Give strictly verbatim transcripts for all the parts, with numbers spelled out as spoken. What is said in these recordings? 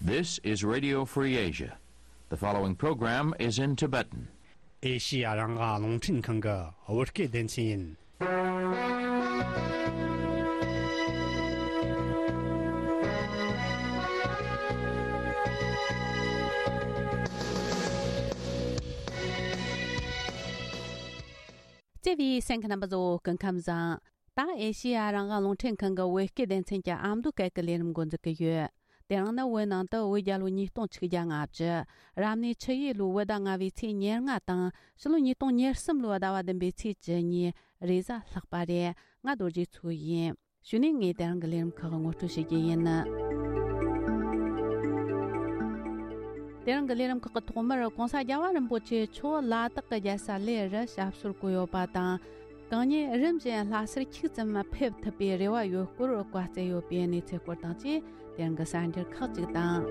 This is Radio Free Asia. The following program is in Tibetan. ཨེ་ཤི་ཡ་རང་དབང་རླུང་འཕྲིན་ཁང་གི་བོད་སྐད་སྡེ་ཚན་ཡིན། བརྩེ་བའི་གསན་མཁན་རྣམ་པ་ཚོ་སྐུ་ཁམས་བཟང་། ད་ཨེ་ཤི་ཡ་རང་དབང་རླུང་འཕྲིན་ཁང་གི་བོད་སྐད་སྡེ་ཚན་གྱི་ཨ་མདོ་སྐད་ཀྱི་ལས་རིམ་འགོ་འཛུགས་ཀྱི་ཡོད། དེ་རིང་ནི་བོད་ནང་དུ་བོད་རྒྱལ་ལོ་ཉིས་སྟོང་ཆིག་བརྒྱ་ལྔ་བཅུ། རབ་གནས་ཆུ་ཡོས་ལོའི་བོད་ཟླ་ལྔ་བའི་ཚེས་ཉེར་ལྔ་དང་། ཕྱི་ལོ་ཉིས་སྟོང་ཉེར་གསུམ་ལོའི་ཟླ་བ་བདུན་པའི་ཚེས་བཅུ་གཉིས་རེས་གཟའ་ལྷག་པ་རེད། ང་རྡོ་རྗེ་མཚོ་ཡིན། གཞུག་ནས་ངས་དེ་རིང་གི་ལས་རིམ་ཁག་ངོ་སྤྲོད་བྱེད་རྒྱུ་ཡིན། དེ་རིང་གི་ལས་རིམ་ཁག་གི་ཐོག་མར་༸གོང་ས་༸རྒྱལ་བ་རིན་པོ་ཆེ་མཆོག་ལ་དྭགས་ཀྱི་རྒྱལ་ས་གླེ་རུ་ཞབས་སོར་བཀོད་ཡོད་པ་དང་། གང་ཉིད་རིམ་བཞིན་ལྷ་སར་ཁྱུག་ཙམ་ཕེབས་ཐུབ་པའི་རེ་བ་ཡོད་སྐོར་བཀའ་སྩལ་ཡོད་པའི་གནས་ཚུལ་སྐོར་དང་བཅས། དེ་རིང་གི་གསར་འགྱུར་ཁག་ཅིག་དང་།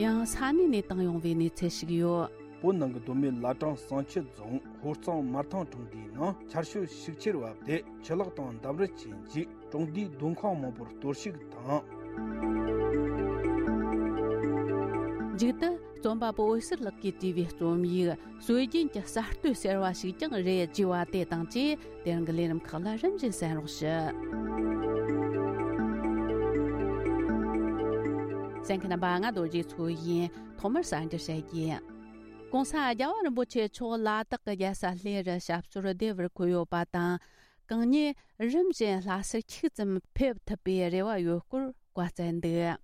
ཡང་ས་གནས་ནས་བཏང་ཡོང་བའི་གནས་ཚུལ་ཞིག་ཡོད། བོད་ནང་གི་མདོ་སྨད་བླ་བྲང་བསང་ཆུ་རྫོང་ཧོར་གཙང་མར་ཐང་གྲོང་སྡེའི་ནང་ཆར་ཞོད་ཤུགས་ཆེར་བབས་ཏེ་ཆུ་ལོག་དང་འདམ་རུད་ཀྱི་འཇིག་གྲོང་སྡེའི་སྡོད་ཁང་མང་པོར་གཏོར་བཤིག་དང་། མཇུག་ཏུ་རྩོམ་པ་པོ་འོད་ཟེར་ལགས་ཀྱིས་བྲིས་པའི་རྩོམ་ཡིག་སྲོལ་རྒྱུན་གྱི་གསར་གཏོད་ཟེར་བ་ཞིག་ཀྱང་རེད་ཅེས་པ་དེ་དང་བཅས། དེ་རིང་གི་ལས་རིམ་ཁག་ལ་རིམ་བཞིན་གསན་རོགས་ཞུ། གསན་མཁན་རྣམ་པ། ང་རྡོ་རྗེ་མཚོ་ཡིན། ཐོག་མར་གསར་འགྱུར་བཤད་རྒྱུ། ༸གོང་ས་༸རྒྱལ་བ་རིན་པོ་ཆེ་མཆོག་ལ་དྭགས་ཀྱི་རྒྱལ་ས་གླེ་རུ་ཞབས་སོར་བདེ་བར་འཁོད་ཡོད་པ་དང་། གང་ཉིད་རིམ་བཞིན་ལྷ་སར་ཁྱུག་ཙམ་ཕེབས་ཐུབ་པའི་རེ་བ་ཡོད་སྐོར་བཀའ་སྩལ་འདུག་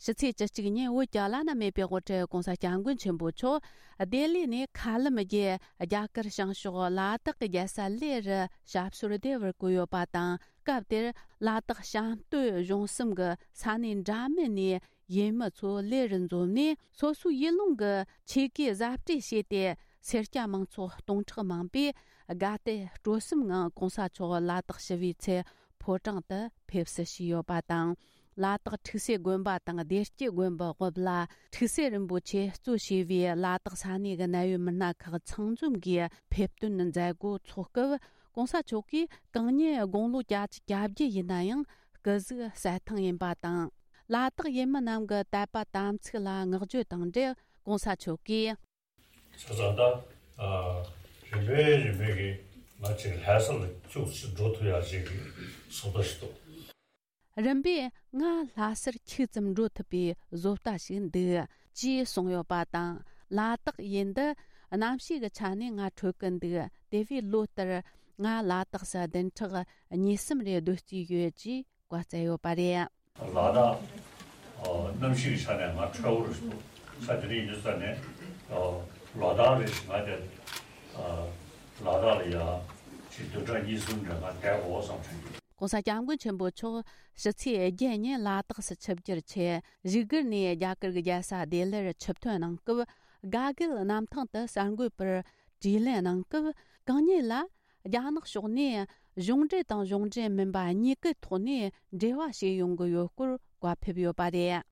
ཕྱི་ཚེས་བཅུ་གཅིག་ཉིན་བོད་ཀྱི་བླ་ན་མེད་པའི་དབུ་ཁྲིད་༸གོང་ས་༸སྐྱབས་མགོན་ཆེན་པོ་མཆོག་ལྡི་ལི་ནས་མཁའ་ལམ་བརྒྱུད་རྒྱ་གར་བྱང་ཕྱོགས་ལ་དྭགས་ཀྱི་རྒྱལ་ས་གླེ་རུ་ཞབས་སོར་བདེ་བར་བཀོད་ཡོད་པ་དང་། སྐབས་དེར་ལ་དྭགས་བྱང་སྟོད་གཞུང་གསུམ་གྱི་ས་གནས་འདྲ་མིན་ནས་ཡུལ་མི་ཚོ་གླེ་རུ་འཛོམས་ནས་སོ་སོའི་ཡུལ་ལུང་གི་ཆོས་གོས་གཟབ་སྤྲས་བྱས་ཏེ། སེར་སྐྱ་མང་ཚོགས་སྟོང་ཕྲག་མང་པོས་དགའ་དད་སྤྲོ་གསུམ་ངང་༸གོང་ས་མཆོག་ལ་དྭགས་ཞི་བའི་ཚལ་ཕོ་བྲང་དུ་ཕེབས་བསུ་ཞུས་ཡོད་པ་དང་། ལ་དྭགས་ཁྲུག་སེ་དགོན་པ་དང་བདེ་སྐྱིད་དགོན་པའི་དབུ་བླ་ཁྲུག་སེ་རིན་པོ་ཆེ་གཙོས་བྱས་པའི་ལ་དྭགས་ས་གནས་ཀྱི་གནད་ཡོད་མི་སྣ་ཁག་ཚང་འཛོམས་ཀྱིས་ཕེབས་སྟོན་མཛད་སྒོ་འཚོགས་སྐབས། ༸གོང་ས་མཆོག་གིས་གང་ཉིད་དགུང་ལོ་བརྒྱད་ཅུ་གྱ་བརྒྱད་ཡིན་ན་ཡང་སྐུ་གཟུགས་གསལ་ཐང་ཡིན་པ་དང་། ལ་དྭགས་ཡུལ་མི་རྣམས་ཀྱི་དད་པ་དམ་ཚིག་ལ་བསྔགས་བརྗོད་དང་འབྲེལ་༸གོང་ས་མཆོག་གིས། བྱས་ཙང་ད། ཨ། རིམ་པས་རིམ་པས་ཀྱིས་ང་ཅིག་ལྷ་ས་ལ་ཁྱུག་ཅིག་འགྲོ་ཐུབ་ཡག་ཅིག་གི་བཟོ་ལྟ་ཞིག་འདུག་རིམ་པས་ང་ལྷ་སར་ཁྱུག་ཙམ་འགྲོ་ཐུབ་པའི་བཟོ་ལྟ་ཞིག་འདུག་ཅེས་གསུངས་ཡོད་པ་དང་། ལ་དྭགས་ཡུལ་འདི་གནམ་གཤིས་ཀྱི་ཆ་ནས་ང་འཕྲོད་ཀྱི་འདུག་དེ་བས་ལོ་ལྟར་ང་ལ་དྭགས་སུ་བདུན་ཕྲག་གཉིས་གསུམ་རེ་སྡོད་རྩིས་ཡོད་ཅེས་བཀའ་སྩལ་ཡོད་པ་རེད། ལ་དྭགས། ཨ། གནམ་གཤིས་ཀྱི་ཆ་ནས་ང་ཁྲ་བོ་རུ་ས་དེ་རིང་ཡིན་ཙང་ནས། ཨ། ལ་དྭགས་རེ་ཞིག་ང་དེ། ཨ། ལ་དྭགས་ལ་ཡ་ཅིག་བདུན་ཕྲག་གཉིས་གསུམ་རེ་ང་བསྡད་དགོས་བསམ་བྱུང་། ༸གོང་ས་༸སྐྱབས་མགོན་ཆེན་པོ་མཆོག་ཕྱི་ཚེས་བརྒྱད་ཉིན་ལ་དྭགས་སུ་ཆིབས་བསྒྱུར་ཆེད་བཞུགས་སྒར་ནས་རྒྱ་གར་གྱི་རྒྱལ་ས་ལྡི་ལིར་ཆིབས་ཐོན་གནང་སྐབས། དགའ་དགལ་གནམ་ཐང་དུ་གསར་འགོད་པར་དྲིས་ལན་གནང་སྐབས། གང་ཉིད་ལ་རྒྱ་ནག་ཕྱོགས་ནས་གཞུང་འབྲེལ་དང་གཞུང་འབྲེལ་མིན་པ་གཉིས་ཀའི་ཐོག་ནས་འབྲེལ་བ་བྱེད་ཡོང་གི་ཡོད་སྐོར་བཀའ་ཕེབས་ཡོད་པ་རེད།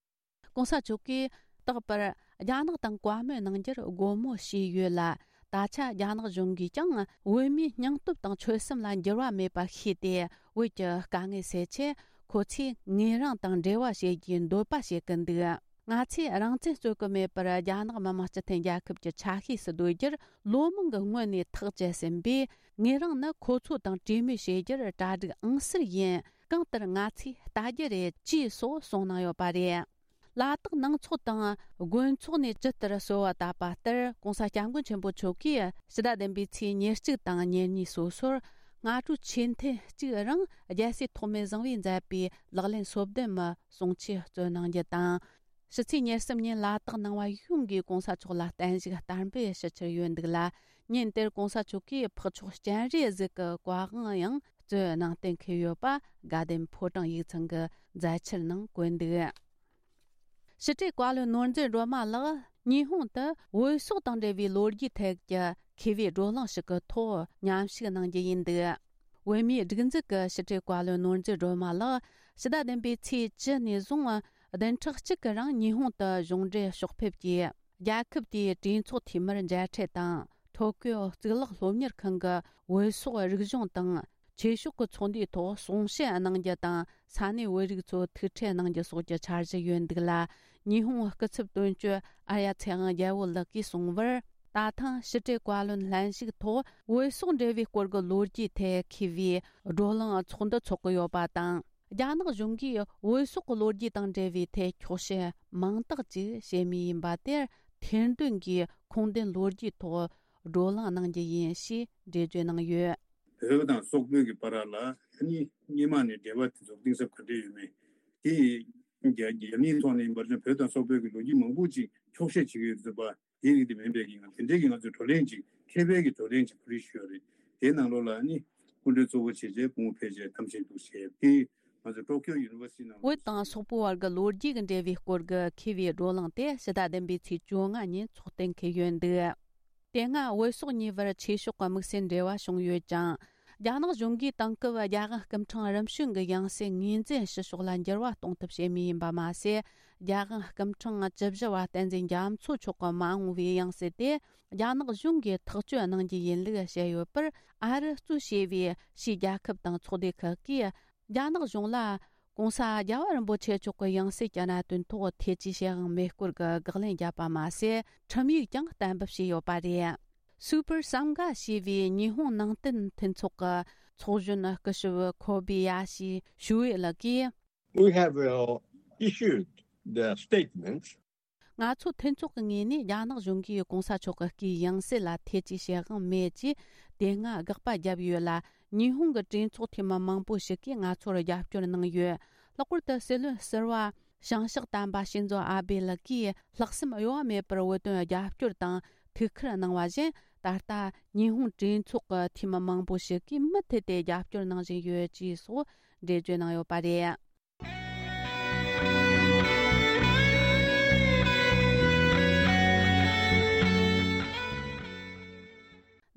༸གོང་ས་མཆོག་གིས་རྟག་པར་རྒྱ་ནག་དང་བཀའ་མོལ་གནང་རྒྱུར་སྒོ་མོ་ཕྱེས་ཡོད་ལ། ད་ཆ་རྒྱ་ནག་གཞུང་གིས་ཀྱང་བོད་མིའི་སྙིང་སྟོབས་དང་ཆོད་སེམས་ལ་འགྱུར་བ་མེད་པ་ཤེས་ཏེ། བོད་ཀྱི་དཀའ་ངལ་སེལ་ཆེད་ཁོ་ཚོས་ངོས་རང་དང་འབྲེལ་བ་བྱེད་རྒྱུའི་འདོད་པ་བྱེད་ཀྱི་འདུག་ང་ཚོས་རང་བཙན་རྩོད་ཀྱི་མེད་པར་རྒྱ་ནག་མི་དམངས་སྤྱི་མཐུན་རྒྱལ་ཁབ་ཀྱི་ཆ་ཤས་སུ་སྡོད་རྒྱུར་ལོ་མང་གི་སྔོན་ནས་ཐག་བཅད་ཟིན་པས། ངོས་རང་ནི་ཁོ་ཚོ་དང་གྲོས་མོལ་བྱེད་རྒྱུར་གྲ་སྒྲིག་ཨང་གསར་ཡིན། གང་ལྟར་ང་ཚོས་ལྟ་རྒྱུ་རེད་ཅེས་སོགས་གསུངས་གནང་ཡོད་པ་རེད། ལ་དྭགས་ནང་ཚོགས་དང་དགོན་ཚོགས་ནས་ཇི་ལྟར་གསོལ་བ་བཏབ་པ་ལྟར། ༸གོང་ས་༸སྐྱབས་མགོན་ཆེན་པོ་མཆོག་གིས་ཕྱི་ཟླ་བདུན་པའི་ཚེས་ཉེར་གཅིག་དང་ཉེར་གཉིས་སོ་སོར་སྔ་དྲོ་ཆོས་ཐུན་གཅིག་རིང་རྒྱལ་སྲས་ཐོགས་མེད་བཟང་པོས་མཛད་པའི་ལག་ལེན་སོ་བདུན་མའི་གསུང་ཆོས་སྩོལ་གནང་རྒྱུ་དང་། ཕྱི་ཚེས་ཉེར་གསུམ་ཉིན་ལ་དྭགས་ནང་པ་ཡོངས་ཀྱིས་༸གོང་ས་མཆོག་ལ་བརྟན་བཞུགས་བསྟར་འབུལ་ཞུ་འཆར་ཡོད་འདུག་ལ། ཉིན་དེར་༸གོང་ས་མཆོག་གིས་འཕགས་མཆོག་སྤྱན་རས་གཟིགས་ཀྱི་བཀའ་དབང་ཡང་སྩོལ་གནང་གཏན་འཁེལ་ཡོད་པ་དགའ་ལྡན་ཕོ་བྲང་ཡིག་ཚང་གི་མཛད་འཆར་ནང་བཀོད་འདུག་ཕྱི་དྲིལ་བཀའ་བློན་ནོར་འཛིན་སྒྲོལ་མ་ལགས་ཉི་ཧོང་དུ་བོད་སོག་དང་འབྲེལ་བའི་ལོ་རྒྱུས་ཐད་ཀྱི་མཁས་པའི་བགྲོ་གླེང་ཞིག་གི་ཐོག་མཉམ་ཞུགས་གནང་རྒྱུ་ཡིན་འདུག་བོད་མིའི་སྒྲིག་འཛུགས་ཀྱི་ཕྱི་དྲིལ་བཀའ་བློན་ནོར་འཛིན་སྒྲོལ་མ་ལགས་ཕྱི་ཟླ་བདུན་པའི་ཚེས་བཅུ་ནས་བཟུང་བདུན་ཕྲག་གཅིག་གི་རིང་ཉི་ཧོང་དུ་གཞུང་འབྲེལ་ཕྱོགས་ཕེབས་ཀྱིས། རྒྱལ་ཁབ་དེའི་གྲོས་ཚོགས་འཐུས་མིར་མཇལ་འཕྲད་དང་ ཐོ་ཀིའོ་གཙུག་ལག་སློབ་གཉེར་ཁང་གི་བོད་སོག་རིག་གཞུང་དང་ཆོས་ཕྱོགས་ཀྱི་ཚོགས་འདུའི་ཐོག་གསུང་བཤད་གནང་རྒྱུ་དང་ས་གནས་བོད་རིགས་ཚོ་ཐུག་འཕྲད་གནང་རྒྱུ་སོགས་ཀྱི་འཆར་གཞི་ཡོད་འདུག་ལ། ཉི་ཧོང་སྐུ་ཚབ་དོན་གཅོད་ཨར་ཡ་ཚེ་དབང་རྒྱལ་པོ་ལགས་ཀྱིས་གསུངས་པར། ད་ཐེངས་ཕྱི་དྲིལ་བཀའ་བློན་ལྷན་ཞུགས་ཐོག་བོད་སོག་འབྲེལ་བའི་སྐོར་གྱི་ལོ་རྒྱུས་ཐད་མཁས་པའི་བགྲོ་གླེང་ཚོགས་འདུ་འཚོགས་ཀྱི་ཡོད་པ་དང་། རྒྱ་ནག་གཞུང་གིས་བོད་སོག་གི་ལོ་རྒྱུས་དང་འབྲེལ་བའི་ཐད་འཁྱོག་བཤད་མང་དག་ཅིག་བྱེད་མུས་ཡིན་པ་དེར་ཐེར་འདོན་གྱིས་ཁུངས་ལྡན་ལོ་རྒྱུས་ཐོག་བགྲོ་གླེང་གནང་རྒྱུ་ཡིན་ཞེས་འགྲེལ་བརྗོད་གནང་ཡོད། བོད་དང་སོག་པོའི་གི་བར་ལ་ཨ་ནི་སྔོན་མ་ནས་འབྲེལ་བ་དེ་ཚོ་གཏིང་ཟབ་ག་འདྲ་ཡོད་མེད་དེ་རྒྱ་རྒྱ་མིའི་ཐོག་ནས་ཡིན་པར་བྱས་བོད་དང་སོག་པོའི་གི་ལོ་རྒྱུས་མང་པོ་ཅིག་འཁྱོག་བཤད་བྱེད་ཀྱི་ཡོད་ཚུལ་པ། དེ་རིགས་དེ་མིན་པའི་གི་ང་དེ་འདྲའི་གི་ང་ཚོས་བགྲོ་གླེང་ཅིག་མཁས་པའི་གི་བགྲོ་གླེང་ཅིག་ཕུལ་རེས་ཞུ་ཡ་རེད། དེའི་ནང་ལོགས་ལ་ནི་སྐུ་མགྲོན་གཙོ་བོ་བྱས་རྗེས་སྐུ་ངོ་ཕེབས་རྗེས་གཏམ་བཤད་འདུག་བྱས་ཏེ་ང་ཚོ་ཊོ་ཀིའོ་ཡུ་ནི་ཝར་སི་ཊི་ནང་བོད་དང་སོག་པོའི་བར་གྱི་ལོ་རྒྱུས་ཀྱི་འབྲེལ་བའི་སྐོར་གྱི་མཁས་པའི་བགྲོ་གླེང་དེ་ཕྱི་ཟླ་བདུན་པའི་ཚེས་བཅོ་ལྔ་ཉིན་འཚོགས་གཏན་འཁེལ་ཡོད་འདུག་དེ་སྔ་བོད་སོག་གཉིས་བར་ཆོས་ཕྱོགས་ཀྱི་དམིགས་བསལ་འབྲེལ་བ་བྱུང་ཡོད་ཀྱང་། རྒྱ་ནག་གཞུང་གིས་དེང་སྐབས་རྒྱ་གར་སྐུ་ཕྲེང་རིམ་བྱོན་གྱི་ཡང་སྲིད་ངོས་འཛིན་ཞུ་ཕྱོགས་ལ་འགྱུར་བ་གཏོང་ཐབས་བྱེད་མུས་ཡིན་པ་མ་ཟད། རྒྱ་གར་སྐུ་ཕྲེང་བཅུ་བཞི་བ་བསྟན་འཛིན་རྒྱ་མཚོ་མཆོག་གི་མ་འོངས་པའི་ཡང་སྲིད་དེ་རྒྱ་ནག་གཞུང་གིས་ཐག་གཅོད་གནང་རྒྱུ་ཡིན་ལུགས་བཤད་ཡོད་པར། ཨ་རི་གཙོས་བྱས་པའི་ཕྱིའི་རྒྱལ་ཁབ་དང་ཚོགས་སྡེ་ཁག་གིས་རྒྱ་ནག་གཞུང་ལ་༸གོང་ས་༸རྒྱལ་བ་རིན་པོ་ཆེ་མཆོག་གི་ཡང་སྲིད་ཀྱི་གནད་དོན་ཐོག་ཐེ་ཇུས་བྱེད་དབང་མེད་སྐོར་གྱི་དགག་ལན་བརྒྱབ་པ་མ་ཟད། ཁྲིམས་ཡིག་ཀྱང་གཏན་འབེབས་བྱས་ཡོད་པ་རེད། Super Sangha ཞེས་པའི་ཉི་ཧོང་ནང་བསྟན་མཐུན་ཚོགས་ཀྱི་ཚོགས་གཞོན་སྐུ་ཞབས་ཁོ་བི་ཡ་ཤི་ཞུ་ཝེ་ལགས་ཀྱིས། We have uh, issued the statements. ང་ཚོ་མཐུན་ཚོགས་ཀྱི་ངོས་ནས་རྒྱ་ནག་གཞུང་གིས་༸གོང་ས་མཆོག་གི་སྐུའི་ཡང་སྲིད་ལ་ཐེ་ཇུས་བྱེད་དབང་མེད་ཅེས་དེ་སྔ་དགག་པ་བརྒྱབ་ཡོད་ལ། ཉི་ཧོང་གི་གྲོས་ཚོགས་འཐུས་མི་མང་པོ་ཞིག་གིས་ང་ཚོར་རྒྱབ་སྐྱོར་གནང་ཡོད། ལྷག་པར་དུ་སྲིད་བློན་ཟུར་པ་བྱང་ཕྱོགས་དམ་པ་ཤིན་ཛོ་ཨ་བྷེ་ལགས་ཀྱིས་ལྷག་བསམ་གཡོ་བ་མེད་པར་བོད་དོན་རྒྱབ་སྐྱོར་དང་ཐུགས་ཁུར་གནང་བ་བཞིན། ད་ལྟ་ཉི་ཧོང་གྲོས་ཚོགས་ཀྱི་འཐུས་མི་མང་པོ་ཞིག་གིས་མུ་མཐུད་དེ་རྒྱབ་སྐྱོར་གནང་བཞིན་ཡོད་ཅེས་སོགས་འགྲེལ་བརྗོད་གནང་ཡོད་པ་རེད།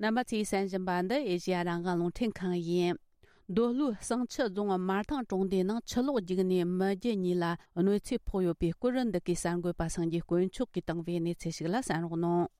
རྣམ་པ་ཚོས་གསན་བཞིན་པ་འདི་ཨེ་ཤེ་ཡ་རང་དབང་རླུང་འཕྲིན་ཁང་ཡིན། མདོ་ལྷོའི་བསང་ཆུ་རྫོང་དམར་ཐང་གྲོང་སྡེའི་ནང་ཆུ་ལོག་རྒྱུག་ནས་མི་བརྒྱད་གཉིས་ལ་གནོད་འཚེ་ཕོག་ཡོད་པའི་སྐོར། འདི་གའི་གསར་འགོད་པ་སངས་རྒྱས་དཀོན་མཆོག་གིས་བཏང་བའི་གནས་ཚུལ་ཞིག་ལ་གསན་རོགས་གནང་།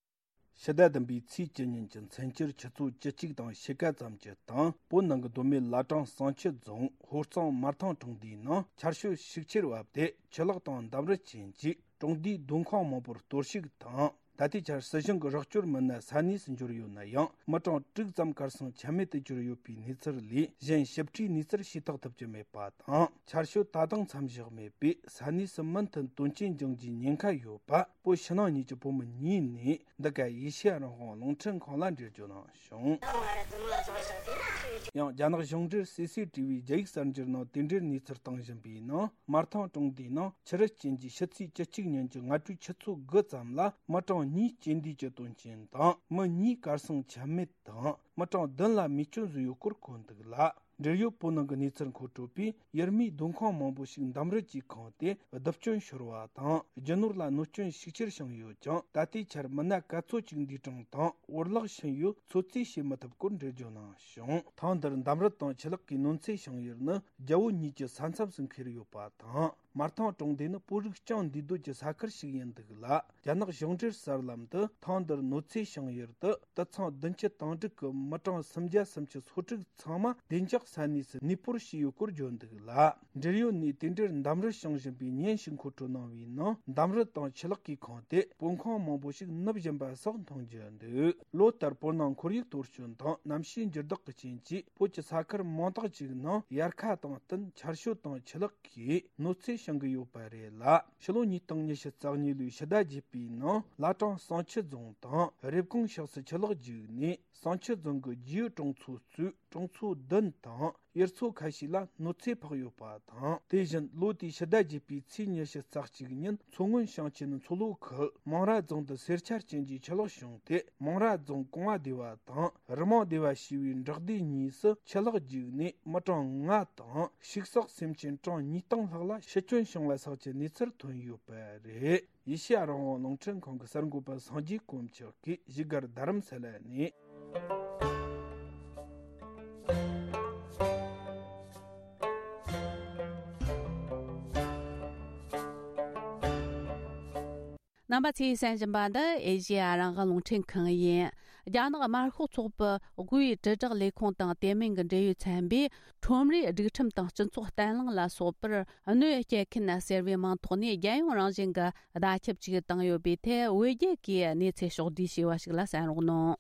ཕྱི་ཟླ་བདུན་པའི་ཚེས་བཅུ་ཉིན་གྱི་མཚན་ཆུ་ཆུ་ཚོད་བཅུ་གཅིག་དང་ཕྱེད་ཀ་ཙམ་གྱི་སྟེང་། བོད་ནང་གི་མདོ་སྨད་བླ་བྲང་བསང་ཆུ་རྫོང་ཧོར་གཙང་དམར་ཐང་གྲོང་སྡེའི་ནང་ཆར་ཞོད་ཤུགས་ཆེར་བབས་ཏེ། ཆུ་ལོག་དང་འདམ་རུད་ཅན་གྱིས་གྲོང་སྡེའི་སྡོད་ཁང་མང་པོར་གཏོར་བཤིག་དང་། ད་ལྟའི་ཆར་སྲིད་གཞུང་གི་རོགས་སྐྱོར་མི་སྣ་ས་གནས་སུ་འབྱོར་ཡོད་ན་ཡང་། མི་གྲངས་དྲུག་ཙམ་གར་སོང་ཆ་མེད་དུ་གྱུར་ཡོད་པའི་གནས་ཚུལ་ལས་གཞན་ཞིབ་ཕྲའི་གནས་ཚུལ་ཤེས་རྟོགས་ཐུབ་ཀྱི་མེད་པ་དང་། ཆར་ཞོད་ད་དུང་མཚམས་བཞག་མེད་པས། ས་གནས་སུ་མུ་མཐུད་དོན་རྐྱེན་འབྱུང་རྒྱུའི་ཉེན་ཁ་ཡོད་པ། བོད་ཕྱི་ནང་གཉིས་ཀྱི་བོད་མི་གཉིས་ནས་འདི་ག་ཨེ་ཤེ་ཡ་རང་དབང་རླུང་འཕྲིན་ཁང་ལ་འགྲེལ་བརྗོད་གནང་བྱུང་། ཡང་། རྒྱ་ནག་གཞུང་འབྲེལ་སི་སི་ཊི་ཝི་རྒྱ་ཡིག་གསར་འགྱུར་ནང་དེ་འབྲེལ་གནས་ཚུལ་བཏང་བཞིན་པའི་ནང་། དམར་ཐང་གྲོང་སྡེའི་ནང་ཆུ་རུད་ཅན་གྱི་ཕྱི་ཚེས་བཅུ་གཅིག་ཉིན་གྱི་སྔ་དྲོའི་ཆུ་ཚོད་དགུ་ཙམ་ལ། མི་གྲངས་གཉིས་རྐྱེན་འདས་ཀྱི་དོན་རྐྱེན་དང་། མི་གཉིས་གར་སོང་ཆ་མེད་དང་། མི་གྲངས་བདུན་ལ་རྨས་སྐྱོན་བཟོས་ཡོད་སྐོར་འཁོད་འདུག་ལ། འབྲེལ་ཡོད་བོད་ནང་གི་གནས་ཚུལ་མཁོ་སྤྲོད་པས། ཡུལ་མིའི་སྡོད་ཁང་མང་པོ་ཞིག་འདམ་རུད་ཀྱིས་ཁེངས་ཏེ། རྡིབ་སྐྱོན་ཤོར་བ་དང་། རྒྱུ་ནོར་ལ་གནོད་སྐྱོན་ཤུགས་ཆེར་བྱུང་ཡོད་ཀྱང་། ད་ལྟའི་ཆར་མི་སྣ་ག་ཚོད་ཅིག་འདས་གྲོངས་དང་འོར་བརླག་ཕྱིན་ཡོད་ཚོད་རྩིས་བྱེད་མི་ཐུབ་སྐོར་འགྲེལ་བརྗོད་གནང་བྱུང་། ཐེངས་འདིར་འདམ་རུད་དང་ཆུ་ལོག་གིས་གནོད་འཚེ་བྱུང་ཡུལ་ནི། རྒྱལ་བོད་གཉིས་ཀྱི་ས་མཚམས་སུ་འཁེལ་ཡོད་པ་དང་། དམར་ཐང་གྲོང་སྡེ་ནི་བོད་རིགས་རྐྱང་འདུས་སྡོད་ཀྱི་ས་ཁུལ་ཞིག་ཡིན་འདུག་ལ། རྒྱ་ནག་གཞུང་འབྲེལ་གསར་ལམ་དུ། ཐེངས་འདིར་གནོད་འཚེ་བྱུང་ཡུལ་དུ། དུད་ཚང་བདུན་ཅུ་དང་དྲུག་གི་མི་གྲངས་སུམ་བརྒྱ་སུམ་ཅུ་སོ་དྲུག་ཚང་མ་བདེ་འཇགས་ས་གནས་སུ་གནས་སྤོར་བྱས་ཡོད་སྐོར་བརྗོད་འདུག་ལ། འབྲེལ་ཡོད་ནས་དེ་འབྲེལ་འདམ་རུད་བྱུང་བཞིན་པའི་ཉིན་ཞིག་མཁོ་སྤྲོད་གནང་བའི་ནང་། འདམ་རུད་དང་ཆུ་ལོག་གིས་ཁེངས་ཏེ། སྤོ་ཁང་མང་པོ་ཞིག་ནུབ་བཞིན་པ་སོགས་མཐོང་རྒྱུ་འདུག་ལོ་ལྟར་བོད་ནང་ཁོར་ཡུག་གཏོར་སྐྱོན་དང་གནམ་གཤིས་འགྱུར་ལྡོག་གི་རྐྱེན་གྱིས། བོད་ཀྱི་ས་ཁུལ་མང་དག་ཅིག་ནང་དབྱར་ཁ་དང་བསྟུན་ཆར་ཞོད་དང་ཆུ་ལོག་གིས་གནོད་འཚེ་བྱུང་གི་ཡོད་པ་རེད་ལ། ཕྱི་ལོ་ཉིས་སྟོང་ཉི་ཤུ་རྩ་གཉིས་ལོའི་ཕྱི་ཟླ་བརྒྱད་པའི་ནང་། བླ་བྲང་བསང་ཆུ་རྫོང་དང་རེབ་གོང་ཕྱོགས་སུ་ཆུ་ལོག་རྒྱུག་ནས། བསང་ཆུ་རྫོང་གི་རྒྱུའི་གྲོང་ཚོ་གཙོས་གྲོང་ཚོ་བདུན་དང་ཡུལ་ཚོ་ཁ་ཤས་ལ་གནོད་འཚེ་ཕོག་ཡོད་པ་དང་། དེ་བཞིན་ལོ་དེའི་ཕྱི་ཟླ་བརྒྱད་པའི་ཚེས་ཉི་ཤུ་རྩ་གཅིག་ཉིན། མཚོ་སྔོན་ཞིང་ཆེན་མཚོ་ལྷོ་ཁུལ་མང་ར་རྫོང་དུ་སེར་ཆ་ཅན་གྱི་ཆུ་ལོག་བྱུང་སྟེ། མང་ར་རྫོང་གོང་བ་སྡེ་བ་དང་རི་མང་སྡེ་བ་ཞེས་པའི་འབྲོག་སྡེ་གཉིས་སུ་ཆུ་ལོག་རྒྱུག་ནས་མི་གྲངས་ལྔ་དང་ཕྱུགས་ཟོག་སེམས་ཅན་གྲངས་ཉིས་སྟོང་ལྷག་ལ་ཤི་སྐྱོན་བྱུང་བ་སོགས་ཀྱི་གནས་ཚུལ་ཐོན་ཡོད་པ་རེད། ཨེ་ཤེ་ཡ་རང་དབང་རླུང་འཕྲིན་ཁང་གི་གསར་འགོད་པ་སངས་རྒྱས་དཀོན་མཆོག་གིས་བཞུགས་སྒར་རྡ་རམ་ས་ལ་ནས། རྣམ་པ་ཚོས་གསན་བཞིན་པ་འདི་ཨེ་ཤེ་ཡ་རང་དབང་རླུང་འཕྲིན་ཁང་ཡིན། རྒྱ་ནག་དམར་ཤོག་ཚོགས་པའི་དབུས་དྲིལ་བསྒྲགས་ལས་ཁུངས་དང་དེ་མིན་གྱི་འབྲེལ་ཡོད་ཚན་པས་ཁྲོམ་རའི་སྒྲིག་ཁྲིམས་དང་སྤྱི་ཚོགས་བརྟན་ལྷིང་ལ་སོགས་པར་གནོད་སྐྱེལ་མཁན་ཟེར་བའི་མིང་ཐོག་ནས་རྒྱལ་ཡོངས་རང་བཞིན་གྱི་བརྡ་ཁྱབ་ཅིག་བཏང་ཡོད་པའི་ཐད། བོད་རྒྱལ་གྱིས་གནས་ཚུལ་ཕྱོགས་བསྡུས་བྱས་པ་ཞིག་ལ་གསན་རོགས་གནང་།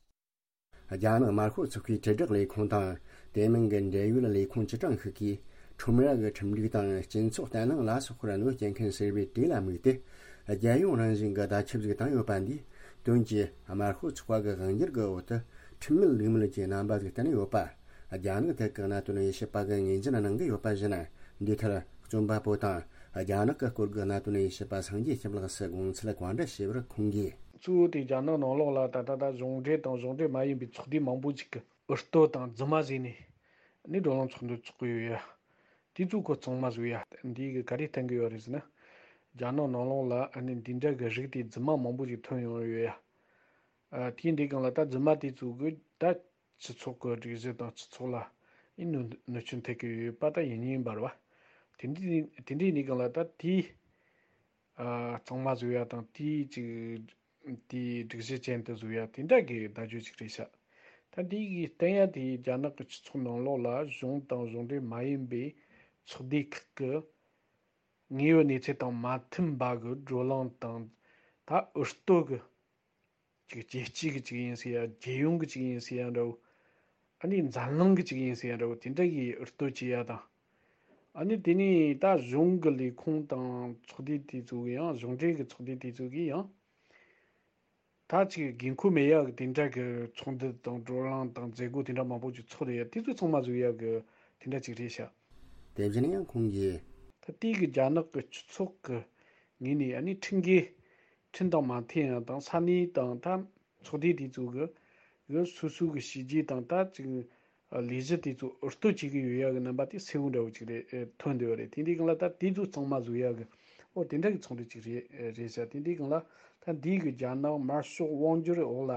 རྒྱ་ནག་དམར་ཤོག་ཚོགས་པའི་དྲིལ་བསྒྲགས་ལས་ཁུངས་དང་དེ་མིན་གྱི་འབྲེལ་ཡོད་ལས་ཁུངས་སྤྱི་གྲངས་ཤིག་གིས་ཁྲོམ་ར་གི་ཁྲིམས་སྒྲིག་དང་སྤྱི་ཚོགས་བརྟན་ལྷིང་ལ་སོགས་པར་གནོད་སྐྱེལ་མཁན་ཟེར་བའི་གྲས་ལ་དམིགས་ཏེ། རྒྱལ་ཡོངས་རང་བཞིན་གྱི་བརྡ་ཁྱབ་ཞིག་བཏང་ཡོད་པ་འདིས། དོན་གྱིས་དམར་ཤོག་ཚོགས་པ་གི་དབང་སྒྱུར་གྱི་འོག་ཏུ་ཁྲིམས་མེད་ལུགས་མེད་ཀྱི་རྣམ་པ་ཞིག་བསྟན་ཡོད་པ། རྒྱ་ནག་ཐད་ཀྱི་གནད་དོན་དབྱེ་ཞིབ་པ་གིས་ངོས་འཛིན་གནང་གི་ཡོད་པ་བཞིན། འདིའི་ཐད་རྩོམ་པ་པོ་དང་རྒྱ་ནག་གི་སྐོར་གྱི་གནད་དོན་དབྱེ་ཞིབ་པ་སངས་རྒྱས་ཁྱིམ་ལགས་སུ་དགོངས་ཚུལ་བཀའ་འདྲི་ཞུས་པར། ཁོང་གིས། གཙོ་བོ་དེ་རྒྱ་ནག་ནང་ལོགས་ལ་ད་ལྟ་ད་གཞུང་འབྲེལ་དང་གཞུང་འབྲེལ་མ་ཡིན་པའི་ཚོགས་སྡེ་མང་པོ་ཞིག་གིས་འུར་གཏོད་དང་རྫུན་མ་བཟོས་ནས་ནི་བགྲོ་གླེང་ཚོགས་འདུ་ཚོགས་ཀྱི་ཡོད་ཡ། དེ་ཚོ་ཁོ་གཙང་མ་བཟོས་ཡ། འདི་གི་ག་རེ་བསྟན་གི་ཡོད་རེད་ཟེར་ན། རྒྱ་ནག་ནང་ལོགས་ལ་ཨ་ནི་འདི་འདྲ་གི་རིགས་དེ་རྫུན་མ་མང་པོ་ཞིག་ཐོན་ཡོང་ཡོད་ཡ། ཨ། དེ་འདི་སྒང་ལ་ད་རྫུན་མ་དེ་ཚོ་གི་ད་སྤྱི་ཚོགས་ཀྱི་སྒྲིག་གཞི་དང་སྤྱི་ཚོགས་ལ་ཨི་གནོད་གནོད་སྐྱོན་ཐེབས་ཀྱི་ཡོད་པ་ད་ཡིན་ཡིན་པ་རེད་བ། དེ་འདྲའི་དེ་འདྲའི་འདི་སྒང་ལ་ད་དེ། ཨ། གཙང་མ་བཟོ་ཡ་དང་དེའི་ཅིག་དེའི་སྒྲིག་གཞི་ཅན་དུ་བཟོ་ཡ་དེ་འདྲ་གི་བརྡ་བརྒྱུད་ཅིག་རེད་ཤག་ད་འདི་གི་བསྟན་ཡ་དེ་རྒྱ་ནག་གི་སྤྱི་ཚོགས་ནང་ལོགས་ལ་གཞུང་དང་གཞུང་འབྲེལ་མ་ཡིན་པའི་ཚོགས་སྡེ་ཁག་གི་དངོས་ཡོད་གནས་ཚུལ་དང་མ་མཐུན་པ་གི་བགྲོ་གླེང་དང་ད་འུར་གཏོད་གི་ཅིག་རྒྱལ་སྤྱི་གི་ཅིག་ཡིན་ཟེར་ཡ། རྒྱལ་ཡོངས་གི་ཅིག་ཡིན་ཟེར་ཡ་འདྲ་བོ། ཨ་ནི་འཛམ་གླིང་གི་ཅིག་ཡིན་ཟེར་ཡ་འདྲ་བོ་དེ་འདྲ་གི་འུར་གཏོད་བྱེད་ཡ་དང་། ཨ་ནི་དེ་ནས་ད་གཞུང་གི་ལས་ཁུངས་དང་ཚོགས་སྡེ་དེ་ཚོ་གི་ཡང་གཞུང་འབྲེལ་གི་ཚོགས་སྡེ་དེ་ཚོ་གི་ཡང་། ད་ཅིག་འགན་ཁུར་མེད་ཡ་གི་དེ་འདྲ་གི་ཚོགས་འདུ་དང་བགྲོ་གླེང་དང་མཛད་སྒོ་དེ་འདྲ་མང་པོ་ཅིག་ཚོགས་རེད་ཡ། དེ་ཚོ་ཚང་མ་བཟོ་ཡ་གི་དེ་འདྲ་ཅིག་རེད་ཤག་དེ་བཞིན་ཡང་ཁོང་གིས། ད་ལྟའི་གི་རྒྱ་ནག་གི་སྤྱི་ཚོགས་ཀྱི་ངོས་ནས་ཨ་ནི་ཁྲིམས་འགལ། ཁྲིམས་དང་མ་མཐུན་ཡ་དང་ས་གནས་དང་ད་ཚོགས་སྡེ་དེ་ཚོ་གི་གི་སོ་སོ་གི་བྱས་རྗེས་དང་ད་ཅིག་ལས་གཞི་དེ་ཚོ་འུར་གཏོད་བྱེད་ཀྱི་ཡོད་ཡ་གི་རྣམ་པ་དེ་གསལ་བོ་འདྲ་བོ་ཅིག་རེད། ཐོན་བསྡད་ཡོད་རེད། དེ་འདྲའི་སྒང་ལ་ད་དེ་ཚོ་གཙང་མ་བཟོ་ཡ་གི་ཨོ་དེ་འདྲ་གི་ཚོགས་འདུ་ཅིག་རེད་རེད་ཤག་དེ་འདྲའི་སྒང་ལ་ད་འདི་གི་རྒྱ་ནག་དམར་ཤོག་དབང་སྒྱུར་འོག་ལ་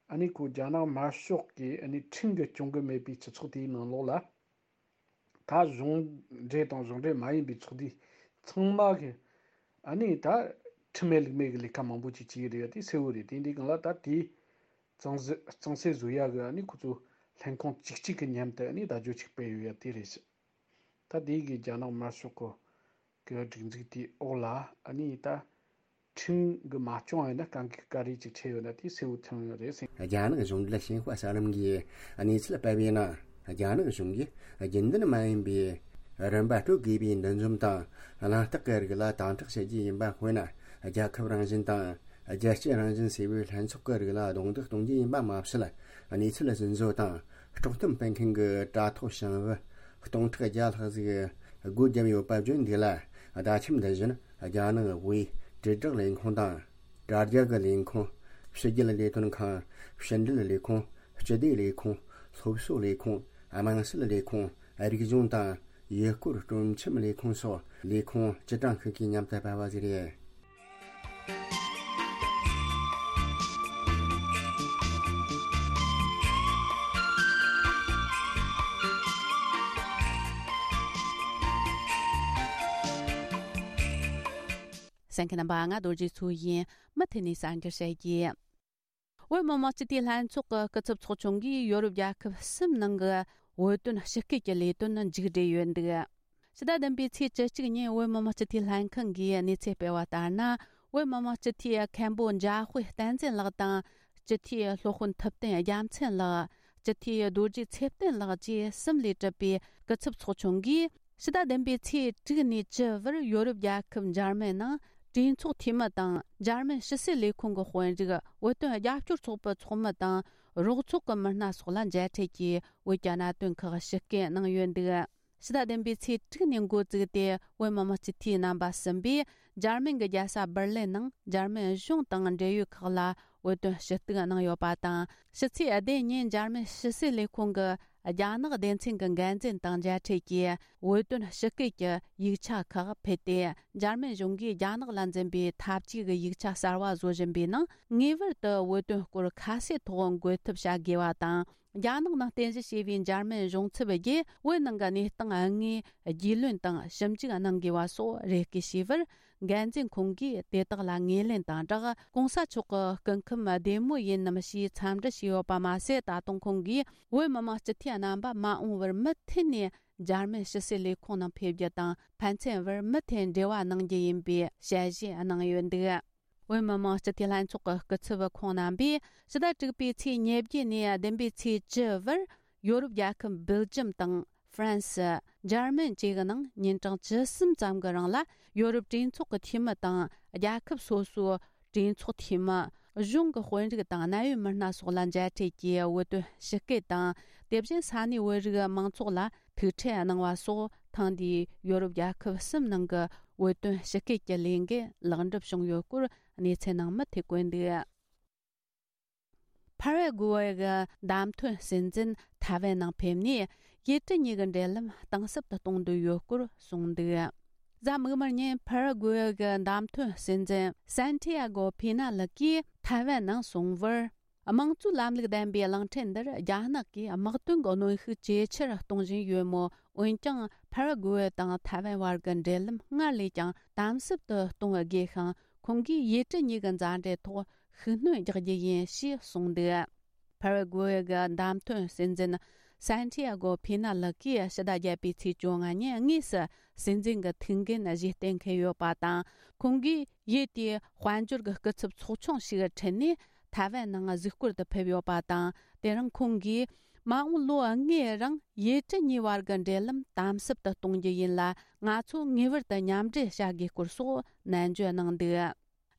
ཨ་ནི་ཁོ་རྒྱ་ནག་དམར་ཤོག་གི་ཨ་ནི་ཁྲིམས་གི་སྐྱོང་གི་མེད་པའི་སྤྱི་ཚོགས་དེའི་ནང་ལོགས་ལ། ད་གཞུང་འབྲེལ་དང་གཞུང་འབྲེལ་མ་ཡིན་པའི་ཚོགས་སྡེ་ཚང་མ་གི་ཨ་ནི་ད་ཁྲིམས་མེད་ལུགས་མེད་ཀྱི་ལས་ཀ་མང་པོ་ཅིག་བྱེད་ཀྱི་རེད་ཡ། དེ་གསལ་བོ་རེད། དེ་འདི་སྒང་ལ་ད་དེ་གཙང་སེལ་གཙང་སེལ་བཟོ་ཡ་གི་ཨ་ནི་ཁོ་ཚོ་ལྷན་ཁང་གཅིག་གཅིག་གི་མཉམ་དུ་ཨ་ནི་བརྡ་བརྒྱུད་ཅིག་སྤེལ་ཡོད་ཡ་དེ་རེད་ཤག་ད་དེ་གི་རྒྱ་ནག་དམར་ཤོག་གི་གི་སྒྲིག་འཛུགས་དེའི་འོག་ལ་ཨ་ནི་ད་ཁྲིམས་གི་མ་སྐྱོང་ཡོད་ན་དཀའ་ངལ་ག་རེ་ཅིག་འཕྲད་ཡོད་ན་དེ་གསལ་བོ་ཐོན་ཡོད་རེད་ཟེར། རྒྱ་ནག་གཞུང་འབྲེལ་ཞིན་ཧྭ་གསར་ལམ་གྱིས་གནས་ཚུལ་སྤེལ་བའི་ནང་རྒྱ་ནག་གཞུང་གིས་རྒྱུན་ལྡན་མ་ཡིན་པའི་རིན་པ་སྤྲོད་དགོས་པའི་འདུ་འཛོམས་དང་གླེང་སྟེགས་ཀྱི་རིགས་ལ་དམ་དྲག་བྱེད་རྒྱུ་ཡིན་པ། དཔེར་ན་རྒྱལ་ཁབ་རང་བཞིན་དང་རྒྱལ་སྤྱི་རང་བཞིན་ཟེར་བའི་ལྷན་ཚོགས་ཀྱི་རིགས་ལ་རྡུང་རྡེག་གཏོང་རྒྱུ་ཡིན་པ་མ་ཟད། གནས་ཚུལ་རྫུན་བཟོ་དང་དཀྲོག་གཏམ་སྤེལ་མཁན་གྱི་དྲ་ཐོག་བྱང་བུ་སྟོང་ཕྲག་བརྒྱ་ལྷག་ཟིག་སྒོ་བརྒྱབ་ཡོད་པ་བརྗོད་འདུག་ལ། བརྡ་ཁྱབ་འདི་བཞིན་རྒྱ་ནག་དབུས་དྲིལ་བསྒྲགས་ལས་ཁུངས་དང་། དྲ་རྒྱ་གི་ལས་ཁུངས། ཕྱི་རྒྱལ་ལས་དོན་ཁང་། ཕྱི་འབྲེལ་ལས་ཁུངས། སྤྱི་བདེ་ལས་ཁུངས། སློབ་གསོ་ལས་ཁུངས། དམངས་སྲིད་ལས་ཁུངས། རིག་གཞུང་དང་ཡུལ་སྐོར་སྤྲོ་འཆམ་ལས་ཁུངས་སོགས་ལས་ཁུངས་སྤྱི་གྲངས་ཤིག་གིས་མཉམ་དུ་སྤེལ་བ་ཞིག་རེད། གསན་མཁན་རྣམ་པ། ང་རྡོ་རྗེ་མཚོ་ཡིན། མུ་མཐུད་ནས་གསར་འགྱུར་བཤད་རྒྱུ། བོད་མི་མང་སྤྱི་འཐུས་ལྷན་ཚོགས་ཀྱི་སྐུ་ཚབ་ཚོགས་ཆུང་གིས་ཡོ་རོབ་རྒྱལ་ཁབ་གསུམ་ནང་གི་བོད་དོན་ཞི་སྐུལ་གྱི་ལས་དོན་མཇུག་སྒྲིལ་ཡོད་འདུག་ཕྱི་ཟླ་བདུན་པའི་ཚེས་བཅུ་གཅིག་ཉིན་བོད་མི་མང་སྤྱི་འཐུས་ལྷན་ཁང་གིས་གནས་ཚུལ་སྤེལ་བ་ལྟར་ན། བོད་མི་མང་སྤྱི་འཐུས་མཁན་པོ་འཇམ་དཔལ་བསྟན་འཛིན་ལགས་དང་། སྤྱི་འཐུས་སློབ་དཔོན་ཐུབ་བསྟན་རྒྱལ་མཚན་ལགས། སྤྱི་འཐུས་རྡོ་རྗེ་ཚེ་བརྟན་ལགས་བཅས་གསུམ་ལས་གྲུབ་པའི་སྐུ་ཚབ་ཚོགས་ཆུང་གིས། ཕྱི་ཟླ་བདུན་པའི་ཚེས་དྲུག་ནས་བཅུ་བར་ཡོ་རོབ་རྒྱལ་ཁབ་འཇར་མན་ནང་གྲོས་ཚོགས་འཐུས་མི་དང་། འཇར་མན་ཕྱི་སྲིད་ལས་ཁུངས་ཀྱི་དཔོན་རིགས། བོད་དོན་རྒྱབ་སྐྱོར་ཚོགས་པའི་ཚོགས་མི་དང་། རོགས་ཚོགས་ཀྱི་མི་སྣ་སོགས་ལ་མཇལ་འཕྲད་ཀྱིས་བོད་ཀྱི་གནད་དོན་ཁག་ཞིབ་བསྐྱོད་གནང་ཡོད་འདུག་ཕྱི་ཟླ་བདུན་པའི་ཚེས་དྲུག་ནས་འགོ་བཙུགས་ཏེ། བོད་མི་མང་སྤྱི་འཐུས་རྣམ་པ་གསུམ་པས་འཇར་མན་གྱི་རྒྱལ་ས་འབར་ལིན་ནང་འཇར་མན་གཞུང་དང་འབྲེལ་ཡོད་ཁག་ལ་བོད་དོན་ཞུ་གཏུག་གནང་ཡོད་པ་དང་། ཕྱི་ཚེས་བདུན་ཉིན་འཇར་མན་ཕྱི་སྲིད་ལས་ཁུངས་ཀྱི་རྒྱ་ནག་སྡེ་ཚན་གྱི་འགན་འཛིན་དང་མཇལ་འཕྲད་ཀྱིས། བོད་དོན་ཞི་སྐུལ་གྱི་ཡིག་ཆ་ཁག་ཕུལ་ཏེ། འཇར་མན་གཞུང་གིས་རྒྱ་ནག་ལ་འཛིན་པའི་འཐབ་ཇུས་ཀྱི་ཡིག་ཆ་གསར་བ་བཟོ་བཞིན་པའི་ནང་། ངེས་པར་དུ་བོད་དོན་སྐོར་ཁ་གསལ་ཐོག་འགོད་ཐབས་བྱ་དགོས་པ་དང་། རྒྱ་ནག་ནང་རྟེན་གཞི་བྱས་པའི་འཇར་མན་གཞུང་ཚབ་བརྒྱུད་བོད་ནང་གི་གནས་སྟངས་དངོས་རྒྱུས་ལོན་དང་ཞིབ་འཇུག་གནང་དགོས་པ་སོགས་རེ་སྐུལ་བྱས་པར། འགན་འཛིན་ཁོང་གིས་དེ་དག་ལ་ངོས་ལེན་དང་སྦྲགས། གོང་ས་མཆོག་གི་སྐུ་ཁམས་བདེ་མོ་ཡིན་ནམ་ཞེས་འཚམས་འདྲི་ཞུས་ཡོད་པ་མ་ཟད། ད་དུང་ཁོང་གིས་བོད་མི་མང་སྤྱི་འཐུས་རྣམ་པ་མ་འོངས་པར་མུ་མཐུད་ནས་འཇར་མན་ཕྱི་སྲིད་ལས་ཁུངས་ནང་ཕེབས་རྒྱུ་དང་། ཕན་ཚུན་བར་མུ་མཐུད་འབྲེལ་བ་གནང་རྒྱུ་ཡིན་པའི་ཞལ་བཞེས་གནང་ཡོད་འདུག། བོད་མི་མང་སྤྱི་འཐུས་ལྷན་ཚོགས་ཀྱི་སྐུ་ཚབ་ཁོང་རྣམ་པས་ཕྱི་ཟླ་དྲུག་པའི་ཚེས་ཉེར་བརྒྱད་ནས་བདུན་པའི་ཚེས་བཅུ་བར་ཡོ་རོབ་རྒྱལ་ཁབ་སྦེལ་ཇམ་དང་ཧྥ་རན་སི། འཇར་མན་བཅས་ཀྱི་ནང་ཉིན་གྲངས་བཅུ་གསུམ་ཙམ་གྱི་རིང་ལ་ཡོ་རོབ་གྲོས་ཚོགས་ཀྱི་འཐུས་མི་དང་། རྒྱལ་ཁབ་སོ་སོའི་གྲོས་ཚོགས་འཐུས་མི། གཞུང་གི་དཔོན་རིགས་དང་། གནད་ཡོད་མི་སྣ་སོགས་ལ་མཇལ་འཕྲད་ཀྱིས་བོད་དོན་ཞི་སྐུལ་དང་། དེ་བཞིན་ས་གནས་བོད་རིགས་མང་ཚོགས་ལ་ཐུག་འཕྲད་གནང་བ་སོགས། ཐེངས་འདིའི་ཡོ་རོབ་རྒྱལ་ཁབ་གསུམ་ནང་གི་བོད་དོན་ཞི་སྐུལ་གྱི་ལས་འགུལ་ལེགས་འགྲུབ་བྱུང་ཡོད་སྐོར་གནས་ཚུལ་ནང་མུ་མཐུད་བཀོད་འདུག། ཕ་ར་གུ་ཝེ་གི་བདམས་ཐོན་སྲིད་འཛིན་ཐའེ་ཝན་ནང་ཕེབས་ནས། ཡུལ་གྲུ་གཉིས་ཀྱི་འབྲེལ་ལམ་གཏིང་ཟབ་ཏུ་གཏོང་འདོད་ཡོད་སྐོར་གསུངས་འདུག། གཟའ་མིག་དམར་ཉིན་ཕ་ར་གུ་ཝེ་གི་བདམས་ཐོན་སྲིད་འཛིན་སན་ཏི་ཡ་གོ་ཕི་ན་ལི་ཀིས་ཐའེ་ཝན་ནང་སོང་བར། དམངས་གཙོའི་ལམ་ལུགས་ལྡན་པའི་གླིང་ཕྲན་འདིར་རྒྱ་ནག་གིས་དམག་དོན་གྱི་གནོན་ཤུགས་ཇེ་ཆེར་གཏོང་བཞིན་ཡོད་མོད། འོན་ཀྱང་ཕ་ར་གུ་ཝེ་དང་ཐའེ་ཝན་བར་གྱི་འབྲེལ་ལམ་སྔར་ལས་ཀྱང་དམ་ཟབ་ཏུ་གཏོང་དགོས་ཤིང་། ཁོང་གིས་ཡུལ་གྲུ་གཉིས་ཀྱི་མཛའ་འབྲེལ་ཐོག་ཤུགས་སྣོན་རྒྱག་རྒྱུ་ཡིན་ཞེས་གསུངས་འདུག། ཕ་ར་གུ་ཝེ་གི་བདམས་ཐོན་སྲིད་འཛིན་སན་ཏི་ཡ་གོ་ཕི་ན་ལི་ཀིས་ཕྱི་ཟླ་བརྒྱད་པའི་ཚེས་བཅོ་ལྔ་ཉིན་དངོས་སུ་སྲིད་འཛིན་གྱི་ཐུགས་འགན་བཞེས་གཏན་འཁེལ་ཡོད་པ་དང་། ཁོང་གིས་ཡུལ་དེའི་དཔལ་འབྱོར་གྱི་སྐུ་ཚབ་ཚོགས་ཆུང་ཞིག་ཁྲིད་ནས་ཐའེ་ཝན་ནང་གཟིགས་སྐོར་དུ་ཕེབས་ཡོད་པ་དང་། དེ་རིང་ཁོང་གིས་མ་འོངས་ལོ་ལྔའི་རིང་ཡུལ་གྲུ་གཉིས་བར་གྱི་འབྲེལ་ལམ་དམ་ཟབ་ཏུ་གཏོང་རྒྱུ་ཡིན་ལ། ང་ཚོ་ངེས་པར་དུ་མཉམ་འབྲེལ་བྱ་དགོས་སྐོར་སོགས་ནན་བརྗོད་གནང་འདུག།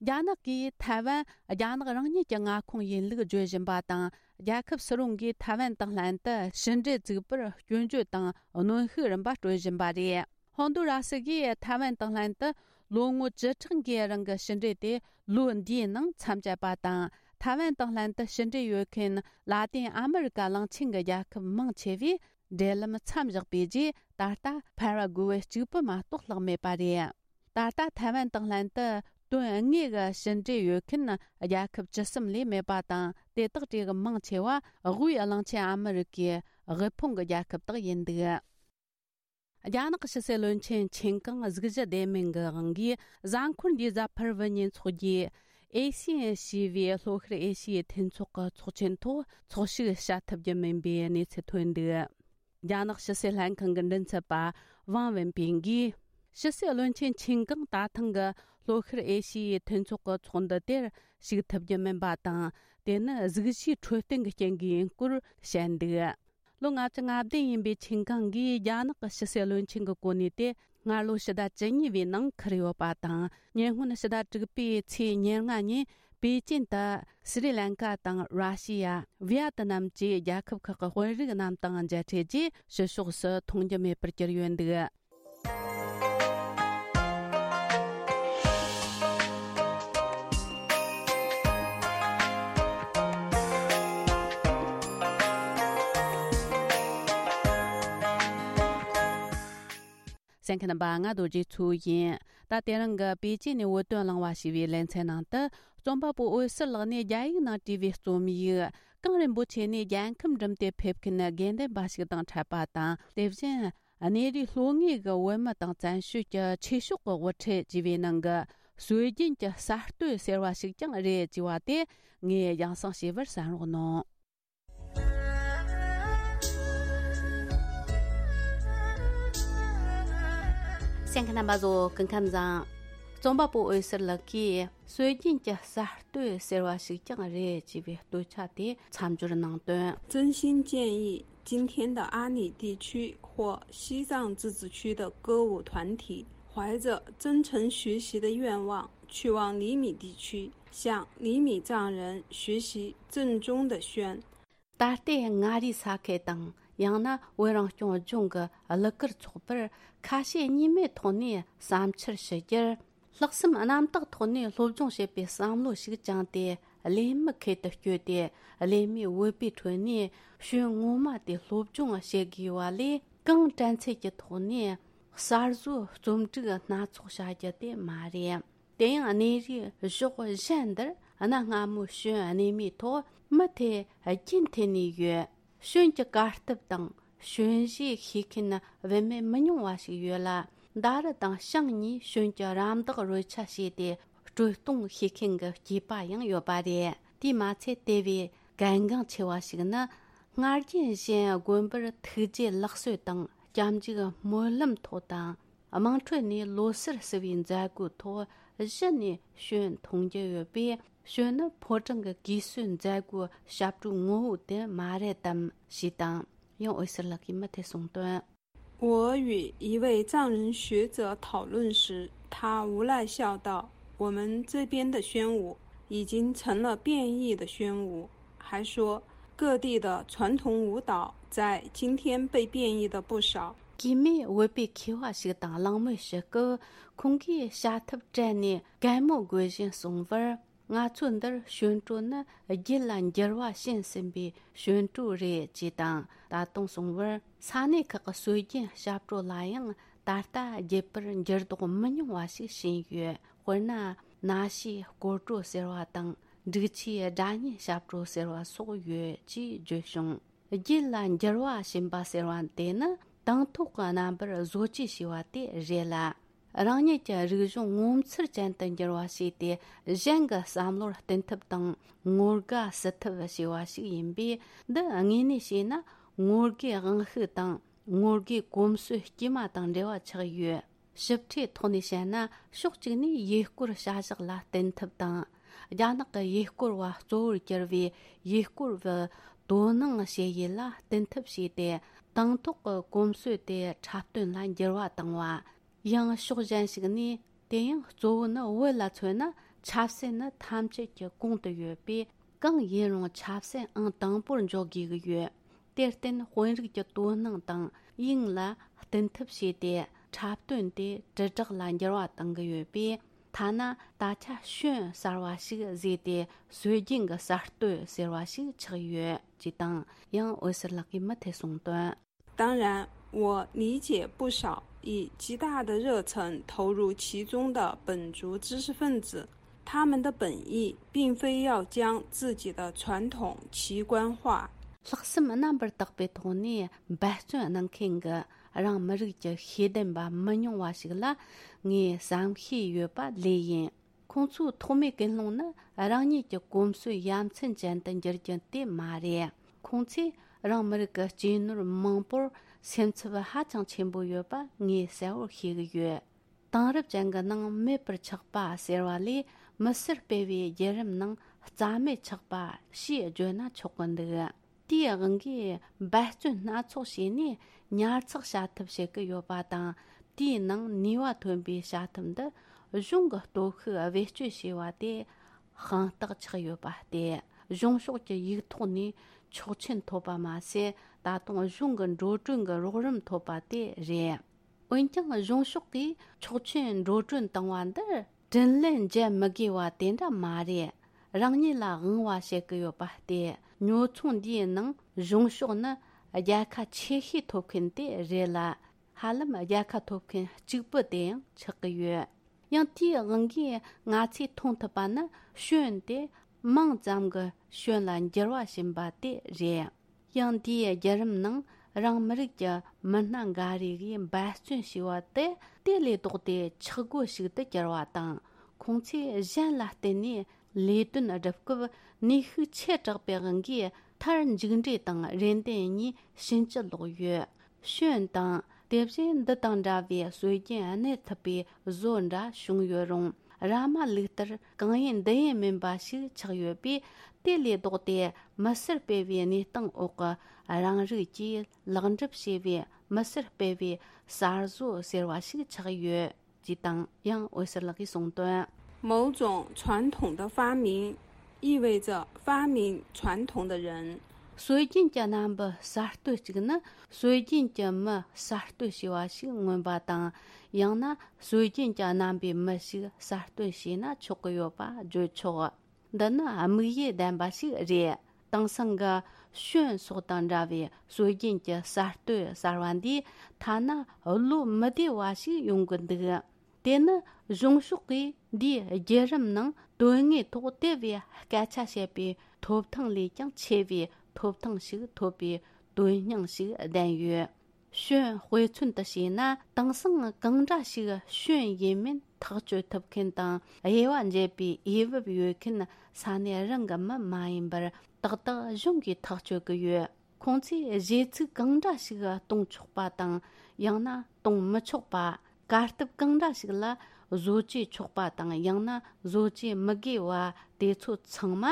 རྒྱ་ནག་གིས་ཐའེ་ཝན་རྒྱ་ནག་རང་ཉིད་ཀྱི་མངའ་ཁོངས་ཡིན་ལུགས་བརྗོད་བཞིན་པ་དང་། རྒྱལ་ཁབ་སུ་རུང་གིས་ཐའེ་ཝན་དང་ལྷན་དུ་ཕྱི་འབྲེལ་བཙུགས་པར་སྐྱོན་བརྗོད་དང་གནོན་ཤུགས་རིམ་པ་སྤྲོད་བཞིན་པ་རེད། ཧོན་དུ་ར་སི་གིས་ཐའེ་ཝན་དང་ལྷན་དུ་ལོ་ངོ་བཅུ་ཕྲག་འགའི་རིང་གི་ཕྱི་འབྲེལ་དེ་ལོ་འདིའི་ནང་མཚམས་བཅད་པ་དང་། ཐའེ་ཝན་དང་ལྷན་དུ་ཕྱི་འབྲེལ་ཡོད་མཁན་ལ་ཏིན་ཨ་མི་རི་ཀ་གླིང་ཆེན་གྱི་རྒྱལ་ཁབ་མང་ཆེ་བས་འབྲེལ་ལམ་མཚམས་བཞག་པའི་རྗེས། ད་ལྟ་ཕ་ར་གུ་ཝེ་གཅིག་པུ་མ་གཏོགས་ལྷག་མེད་པ་རེད། ད་ལྟ་ཐའེ་ཝན་དང་ལྷན་དུ་དོན་དངོས་ཀྱི་ཕྱི་འབྲེལ་ཡོད་མཁན་རྒྱལ་ཁབ་བཅུ་གསུམ་ལས་མེད་པ་དང་། དེ་དག་གྲས་ཀྱི་མང་ཆེ་བ་དབུས་གླིང་ཆེན་ཨ་མི་རི་ཀའི་དབུལ་ཕོངས་ཀྱི་རྒྱལ་ཁབ་དག་ཡིན་འདུག། རྒྱ་ནག་ཕྱི་སྲིད་བློན་ཆེན་ཆིན་ཀང་གཟུགས་གཞི་བདེ་མིན་གྱི་དབང་གིས། གཟའ་འཁོར་འདིའི་གཟའ་ཕུར་བུ་ཉིན་ཚོགས་རྒྱུའི་ཨེ་ཤི་ཡན་ཞེས་པའི་ལྷོ་ཤར་ཨེ་ཤི་ཡའི་མཐུན་ཚོགས་ཀྱི་ཚོགས་ཆེན་ཐོག་ཚོགས་ཞུགས་བྱ་ཐུབ་རྒྱུ་མིན་པའི་གནས་ཚུལ་ཐོན་འདུག། རྒྱ་ནག་ཕྱི་སྲིད་ལྷན་ཁང་གི་མགྲིན་ཚབ་པ་ཝང་ཝེན་པིན་གྱིས། ཕྱི་སྲིད་བློན་ཆེན་ཆིན་ཀང་ད་ཐེངས་ཀྱི་ལྷོ་ཤར་ཨེ་ཤི་ཡའི་མཐུན་ཚོགས་ཀྱི་ཚོགས་འདུ་དེར་ཞུགས་ཐུབ་རྒྱུ་མིན་པ་དང་། དེ་ནི་གཟུགས་གཞིའི་འཕྲོད་བསྟེན་གྱི་རྐྱེན་གྱིས་ཡིན་སྐོར་བཤད་འདུག། ལོ་ལྔ་བཅུ་ང་བདུན་ཡིན་པའི་ཆིན་ཀང་གིས་རྒྱ་ནག་གི་ཕྱི་སྲིད་བློན་ཆེན་གྱི་གོ་གནས་དེ་སྔར་ལོ་ཕྱི་ཟླ་བཅུ་གཉིས་པའི་ནང་འཁུར་ཡོད་པ་དང་། ཉེ་སྔོན་ཕྱི་ཟླ་དྲུག་པའི་ཚེས་ཉེར་ལྔ་ཉིན་པེ་ཅིན་དུ་སི་རི་ལན་ཀ་དང་ར་ཤི་ཡ། ཝི་ཡ་ཏི་ནམ་བཅས་རྒྱལ་ཁབ་ཁག་གི་དཔོན་རིགས་རྣམས་དང་མཇལ་འཕྲད་རྗེས། ཕྱི་ཕྱོགས་སུ་མཐོང་རྒྱུ་མེད་པར་གྱུར་ཡོད་འདུག། གསན་མཁན་རྣམ་པ། ང་རྡོ་རྗེ་མཚོ་ཡིན། ད་དེ་རིང་གི་པེ་ཅིན་ནས་བོད་དོན་གླེང་བ་ཞེས་པའི་ལེ་ཚན་ནང་དུ། རྩོམ་པ་པོ་འོད་ཟེར་ལགས་ནས་རྒྱ་ཡིག་ནང་བྲིས་པའི་རྩོམ་ཡིག། གངས་རིན་པོ་ཆེ་ནས་རྒྱལ་ཁམས་འགྲིམ་སྟེ་ཕེབས་མཁན་དགེ་འདུན་པ་ཞིག་དང་འཕྲད་པ་དང་། དེ་བཞིན་གནས་རིའི་ལྷོ་ངོས་ཀྱི་བོད་མི་དང་བཙན་བྱོལ་གྱི་ཆོས་ཕྱོགས་ཀྱི་དབུ་ཁྲིད་ཅེས་པའི་ནང་གི་སྲོལ་རྒྱུན་གྱི་གསར་གཏོད་ཟེར་བ་ཞིག་ཀྱང་རེད་ཅེས་པ་དེ་ངས་རྒྱང་སྲིང་ཞུས་པར་གསན་རོགས་གནང་། གསན་མཁན་རྣམ་པ་ཚོ་སྐུ་ཁམས་བཟང་། རྩོམ་པ་པོ་འོད་ཟེར་ལགས་ཀྱིས་སྲོལ་རྒྱུན་གྱི་གསར་གཏོད་ཟེར་བ་ཞིག་ཀྱང་རེད་ཅེས་པའི་བསྟོད་བྱ་དེ་མཚམས་སྦྱོར་གནང་དོན། 真心建议，今天的阿里地区或西藏自治区的歌舞团体，怀着真诚学习的愿望，去往厘米地区，向厘米藏人学习正宗的宣。 ད་ལྟའི་མངའ་རིས་ས་ཁུལ་དང་། ཡང་ན་བོད་རང་སྐྱོང་ལྗོངས་ཀྱི་གླུ་གར་ཚོགས་པར་ཁ་ཞེ་གཉིས་མེད་ཐོག་ནས་བསམ་འཆར་ཞུ་རྒྱུར། ལྷག་བསམ་རྣམ་དག་ཐོག་ནས་སློབ་སྦྱོང་བྱེད་པའི་བསམ་བློ་ཞིག་བཅངས་ཏེ། གླེང་མི་ཁུལ་དུ་བསྐྱོད་དེ། གླེང་མོལ་བོད་པའི་ཁྲོད་ནས་ཤོད་ངོ་མ་དེ་སློབ་སྦྱོང་བྱེད་དགོས་པ་ལས། གང་དྲན་ཚད་ཀྱི་ཐོག་ནས་གསར་བཟོའི་རྩོམ་སྒྲིག་སྣ་ཚོགས་བྱ་རྒྱུ་དེ་མ་རེད། དེ་ཡང་གནས་རིའི་གཞོགས་གཞན་འདིར་གནའ་སྔ་མོའི་ཤོད་གནས་མིའི་ཐོག་མུ་མཐུད་རྒྱུན་འཐེན་ནས་ཡོད། ཤོད་ཀྱི་གར་སྟབས་དང་ཤོད་གཞས་ཤེས་མཁན་བུད་མེད་མི་ཉུང་བ་ཞིག་ཡོད་ལ། མདའ་རུ་དང་ཤིང་གཉིས་ཞོན་གྱི་རམ་འདེགས་རོལ་ཆ་བྱས་ཏེ་དཀྲོལ་གཏོང་བྱེད་མཁན་གྱི་སྐྱེས་པ་ཡང་ཡོད་པ་རེད། དེས་མ་ཚད་དེ་བས་གལ་འགངས་ཆེ་བ་ཞིག་ནི། སྔར་རྒྱུན་བཞིན་དགོན་པར་ཐུགས་རྗེ་ལེགས་གསོལ་དང་སྐྱབས་འཇུག་སྨོན་ལམ་ཐོག་དང་། དམངས་ཁྲོད་ནས་ལོ་སར་བསུ་བའི་མཛད་སྒོའི་ཐོག་གཞི་ནས་ཞོན་མཐོང་རྒྱུ་ཡོད་པས། ཞོན་ནི་ཕོ་བྲང་གི་གུས་གསོལ་མཛད་སྒོའི་ཞབས་བྲོའི་ངོ་བོ་དེ་མ་རེད་དམ་ཞེས་དང་། ཡང་འོད་ཟེར་ལགས་ཀྱིས་མུ་མཐུད་གསུངས་དོན། 我与一位藏人学者讨论时，他无奈笑道：“我们这边的宣武已经成了变异的宣武。”还说，各地的传统舞蹈在今天被变异的不少。 གུས་མོས་བོད་པའི་མཁས་པ་ཞིག་དང་གླེང་མོལ་ཞུ་སྐབས། ཁོང་གིས་བྱ་ཐབས་སྤྲད་ནས་གད་མོ་དགོད་བཞིན་གསུངས་པར། ང་ཚོ་འདིར་ཞོན་གྲོ་ནི་རྒྱུད་ལ་འགྱུར་བ་ཕྱིན་ཟིན་པའི་ཞོན་གྲོ་རེད་ཅེས་དང་། ད་དུང་གསུངས་པར། ས་གནས་ཁག་གི་སྲོལ་རྒྱུན་ཞབས་བྲོ་ལ་ཡང་ད་ལྟ་རྒྱུད་པར་འགྱུར་ལྡོག་མི་ཉུང་བ་ཞིག་ཕྱིན་ཡོད། དཔེར་ན། ན་ཤིས་སྐོར་བྲོ་ཟེར་བ་དང་། འབྲུག་ཆུའི་སྒྲ་སྙན་ཞབས་བྲོ་ཟེར་བ་སོགས་ཡོད་ཅེས་བརྗོད་བྱུང་། རྒྱུད་ལ་འགྱུར་བ་ཕྱིན་པ་ཟེར་བ་དེ་ནི་དང་ཐོག་གི་རྣམ་པར་བཟོ་བཅོས་བྱས་པ་དེ་རེད་ལ། རང་ཉིད་ཀྱི་རིག་གཞུང་ངོ་མཚར་ཅན་དུ་འགྱུར་བ་བྱས་ཏེ། གཞན་གྱི་བསམ་བློར་བསྟུན་ཐབས་དང་། ངོ་དགའ་བསུ་ཐབས་བྱས་པ་ཞིག་ཡིན་པས། འདི་དངོས་གནས་བྱས་ན་ངོ་དགའི་དབང་ཤུགས་དང་། ངོ་དགའི་གོམས་སྲོལ་དཀྱུས་མ་དང་འབྲེལ་བ་ཆགས་ཡོད། ཞིབ་ཕྲའི་ཐོག་ནས་བཤད་ན། ཕྱོགས་གཅིག་ནས་ཡུལ་སྐོར་བྱ་གཞག་ལ་བརྟེན་ཐབས་དང་། རྒྱ་ནག་གི་ཡུལ་སྐོར་བ་གཙོ་བོར་གྱུར་བའི་ཡུལ་སྐོར་བའི་དོ་སྣང་བྱེད་ཡུལ་ལ་བརྟེན་ཐབས་བྱས་ཏེ། དང་ཐོག་གི་གོམས་སྲོལ་དེ་འཁྲབ་སྟོན་ལ་འགྱུར་བ་བཏང་བ། ཡང་ཕྱོགས་གཞན་ཞིག་ནས། དེ་ཡང་གཙོ་བོ་ནི། བོད་ལ་མཚོན་ན་ཆབ་སྲིད་ནི་ཐམས་ཅད་ཀྱི་གོང་དུ་ཡོད་པས། གང་ཡིན་རུང་ཆབ་སྲིད་ཨང་དང་པོར་འཇོག་དགོས་ཀྱི་ཡོད། དེར་བརྟེན། དཔོན་རིགས་ཀྱི་དོ་སྣང་དང་དབྱིངས་ལ་བརྟེན་ཐབས་བྱས་ཏེ། འཁྲབ་སྟོན་དེ་དྲིལ་བསྒྲགས་ལ་འགྱུར་བ་གཏང་གི་ཡོད་པས། ཐ་ན་ད་ཆ་ཞོན་གསར་བ་ཞིག་བཟོས་ཏེ། སྲོལ་རྒྱུན་གྱི་གསར་གཏོད་ཟེར་བ་ཞིག་ཆགས་ཡོད་ཅེས་དང་། ཡང་འོད་ཟེར་ལགས་ཀྱིས་མུ་མཐུད་གསུངས་དོན། 当然，我理解不少以极大的热忱投入其中的本族知识分子，他们的本意并非要将自己的传统奇观化。 ལྷག་བསམ་རྣམ་པར་དག་པའི་ཐོག་ནས་འབད་བརྩོན་གནང་མཁན་གྱི་རང་མི་རིགས་ཀྱི་ཤེས་ལྡན་པ་མི་ཉུང་བ་ཞིག་ལ་ངས་བསམ་ཤེས་ཡོད་པ་ལོས་ཡིན། ཁོང་ཚོའི་ཐོག་མའི་ཀུན་སློང་ནི་རང་ཉིད་ཀྱི་གོམས་སྲོལ་ཡ་མཚན་ཅན་དུ་འགྱུར་རྒྱུ་དེ་མ་རེད། ཁོང་ཚོས་རང་མི་རིགས་ཀྱི་གཅེས་ནོར་མང་པོར་སེམས་འཚབ་ཧ་ཅང་ཆེན་པོ་ཡོད་པ་ངས་གསལ་བོར་ཤེས་ཀྱི་ཡོད། དེང་རབས་ཅན་གྱི་ནང་མེད་པར་ཆགས་པ་ཟེར་བ་ལས། མི་སེར་སྤེལ་བའི་བརྒྱུད་རིམ་ནང་རྩ་མེད་ཆགས་པ་ཞེས་བརྗོད་ན་ཆོག་གི་འདུག་དེའི་དབང་གིས་འབད་བརྩོན་སྣ་ཚོགས་བྱས་ནས་ཉར་ཚགས་བྱ་ཐབས་བྱེད་ཀྱི་ཡོད་པ་དང་། དེའི་ནང་ནུས་པ་ཐོན་པའི་བྱ་ཐབས་འདི་གཞུང་གི་སྟོབས་ཤུགས་བེད་སྤྱོད་བྱས་པ་དེ་དཔང་རྟགས་ཆགས་ཡོད་པ་སྟེ། གཞུང་ཕྱོགས་ཀྱི་ཡིག་ཐོག་ནས་ཆོག་མཆན་ཐོབ་པ་མ་ཟད། ད་དུང་གཞུང་གི་འགྲོ་གྲོན་གྱི་རོགས་རམ་ཐོབ་པ་དེ་རེད། འོན་ཀྱང་། གཞུང་ཕྱོགས་ཀྱིས་ཆོག་མཆན་འགྲོ་གྲོན་བཏང་བ་འདིར་དྲིན་ལན་འཇལ་མི་དགོས་པ་དེ་འདྲ་མ་རེད། རང་ཉིད་ལ་དབང་བ་བྱེད་ཀྱི་ཡོད་པ་སྟེ། ཉོ་ཚོང་འདིའི་ནང་གཞུང་ཕྱོགས་ནི་རྒྱལ་ཁ་ཆེ་ཤོས་ཐོབ་མཁན་དེ་རེད་ལ། ཧ་ལམ་རྒྱལ་ཁ་ཐོབ་མཁན་གཅིག་པུ་དེ་ཡང་ཆགས་ཀྱི་ཡོད། ཡང་དེའི་དབང་གིས་ང་ཚོས་མཐོང་ཐུབ་པ་ནི། ཞོན་དེ་མིང་ཙམ་གྱི་ཞོན་ལ་འགྱུར་བ་ཕྱིན་པ་དེ་རེད། ཡང་དེའི་བརྒྱུད་རིམ་ནང་རང་མི་རིགས་ཀྱི་མི་སྣ་འགའ་རེ་གིས་འབད་བརྩོན་བྱས་པ་དེ་དེ་ལས་ལྡོག་སྟེ་ཆག་སྒོ་ཞིག་ཏུ་གྱུར་བ་དང་། ཁོང་ཚོས་གཞན་ལ་བརྟེན་ནས་ལས་དོན་བསྒྲུབ་སྐབས། ནུས་ཤུགས་ཆེ་དྲགས་པའི་དབང་གིས། མཐར་མཇུག་འབྲས་དང་རེ་འདུན་གཉིས་ཕྱིན་ཅི་ལོག་ཡོད། ཞོན་དང་། དེ་བཞིན་འདི་དང་འདྲ་བའི་སྲོལ་རྒྱུན་གནས་ཐུབ་པའི་བཟོ་འདྲ་བྱུང་ཡོད་རུང་། ར་མ་ལུག་ལྟར་གང་ཡིན་འདི་ཡིན་མིན་པ་ཞིག་ཆགས་ཡོད་པས། དེ་ལས་ལྡོག་སྟེ་མི་སེར་སྤེལ་བའི་གནས་སྟངས་འོག་གི་རང་རིགས་ཀྱིས་ལེགས་འགྲུབ་བྱས་པའི་མི་སེར་སྤེལ་བའི་གསར་བཟོ་ཟེར་བ་ཞིག་ཆགས་ཡོད། ཅེས་དང་། ཡང་འོད་ཟེར་ལགས་ཀྱིས་གསུངས་དོན། 某种传统的发明意味着发明传统的人。 སྲོལ་རྒྱུན་གྱི་རྣམ་པ་གསར་གཏོད་ཅིག་ནི། སྲོལ་རྒྱུན་གྱི་མི་གསར་གཏོད་བྱས་པ་ཞིག་མངོན་པ་དང་། ཡང་ན་སྲོལ་རྒྱུན་གྱི་རྣམ་པའི་མི་ཞིག་གསར་གཏོད་བྱས་ན་ཆོག་གི་ཡོད་པ་བརྗོད་ཆོག་འདི་ནི་དམིགས་ཡུལ་ལྡན་པ་ཞིག་རེད། དེང་སང་གི་ཞོན་སོགས་དང་འདྲ་བའི་སྲོལ་རྒྱུན་གྱི་གསར་གཏོད་གསར་བ་འདིས་ཐ་ན་བློ་མི་བདེ་བ་ཞིག་ཡོང་གི་འདུག་དེ་ནི་གཞུང་ཕྱོགས་ཀྱིས་འདིའི་བརྒྱུད་རིམ་ནང་དོན་དངོས་ཐོག་དེ་བས་སྐད་ཆ་བཤད་པའི་ཐོབ་ཐང་ལས་ཀྱང་ཆེ་བའི་ཐོབ་ཐང་ཞིག་ཐོབ་པའི་དོན་སྙིང་ཞིག་ལྡན་ཡོད། ཞོན་དཔེ་མཚོན་དུ་བྱས་ན། དེང་སང་གང་འདྲ་ཞིག་ཞོན་ཡིན་མིན་ཐག་གཅོད་ཐུབ་མཁན་དང་དབྱེ་བ་འབྱེད་པའི་འོས་བབ་ཡོད་མཁན་ས་གནས་རང་གི་མི་མ་ཡིན་པར་ཏག་ཏག་གཞུང་གིས་ཐག་གཅོད་ཀྱི་ཡོད། ཁོང་ཚོས་གཞས་ཚིག་གང་འདྲ་ཞིག་གཏོང་ཆོག་པ་དང་། ཡང་ན་གཏོང་མི་ཆོག་པ། གར་སྟབས་གང་འདྲ་ཞིག་ལ་བཟོ་བཅོས་ཆོག་པ་དང་། ཡང་ན་བཟོ་བཅོས་མི་དགོས་པ། དེ་ཚོ་ཚང་མ་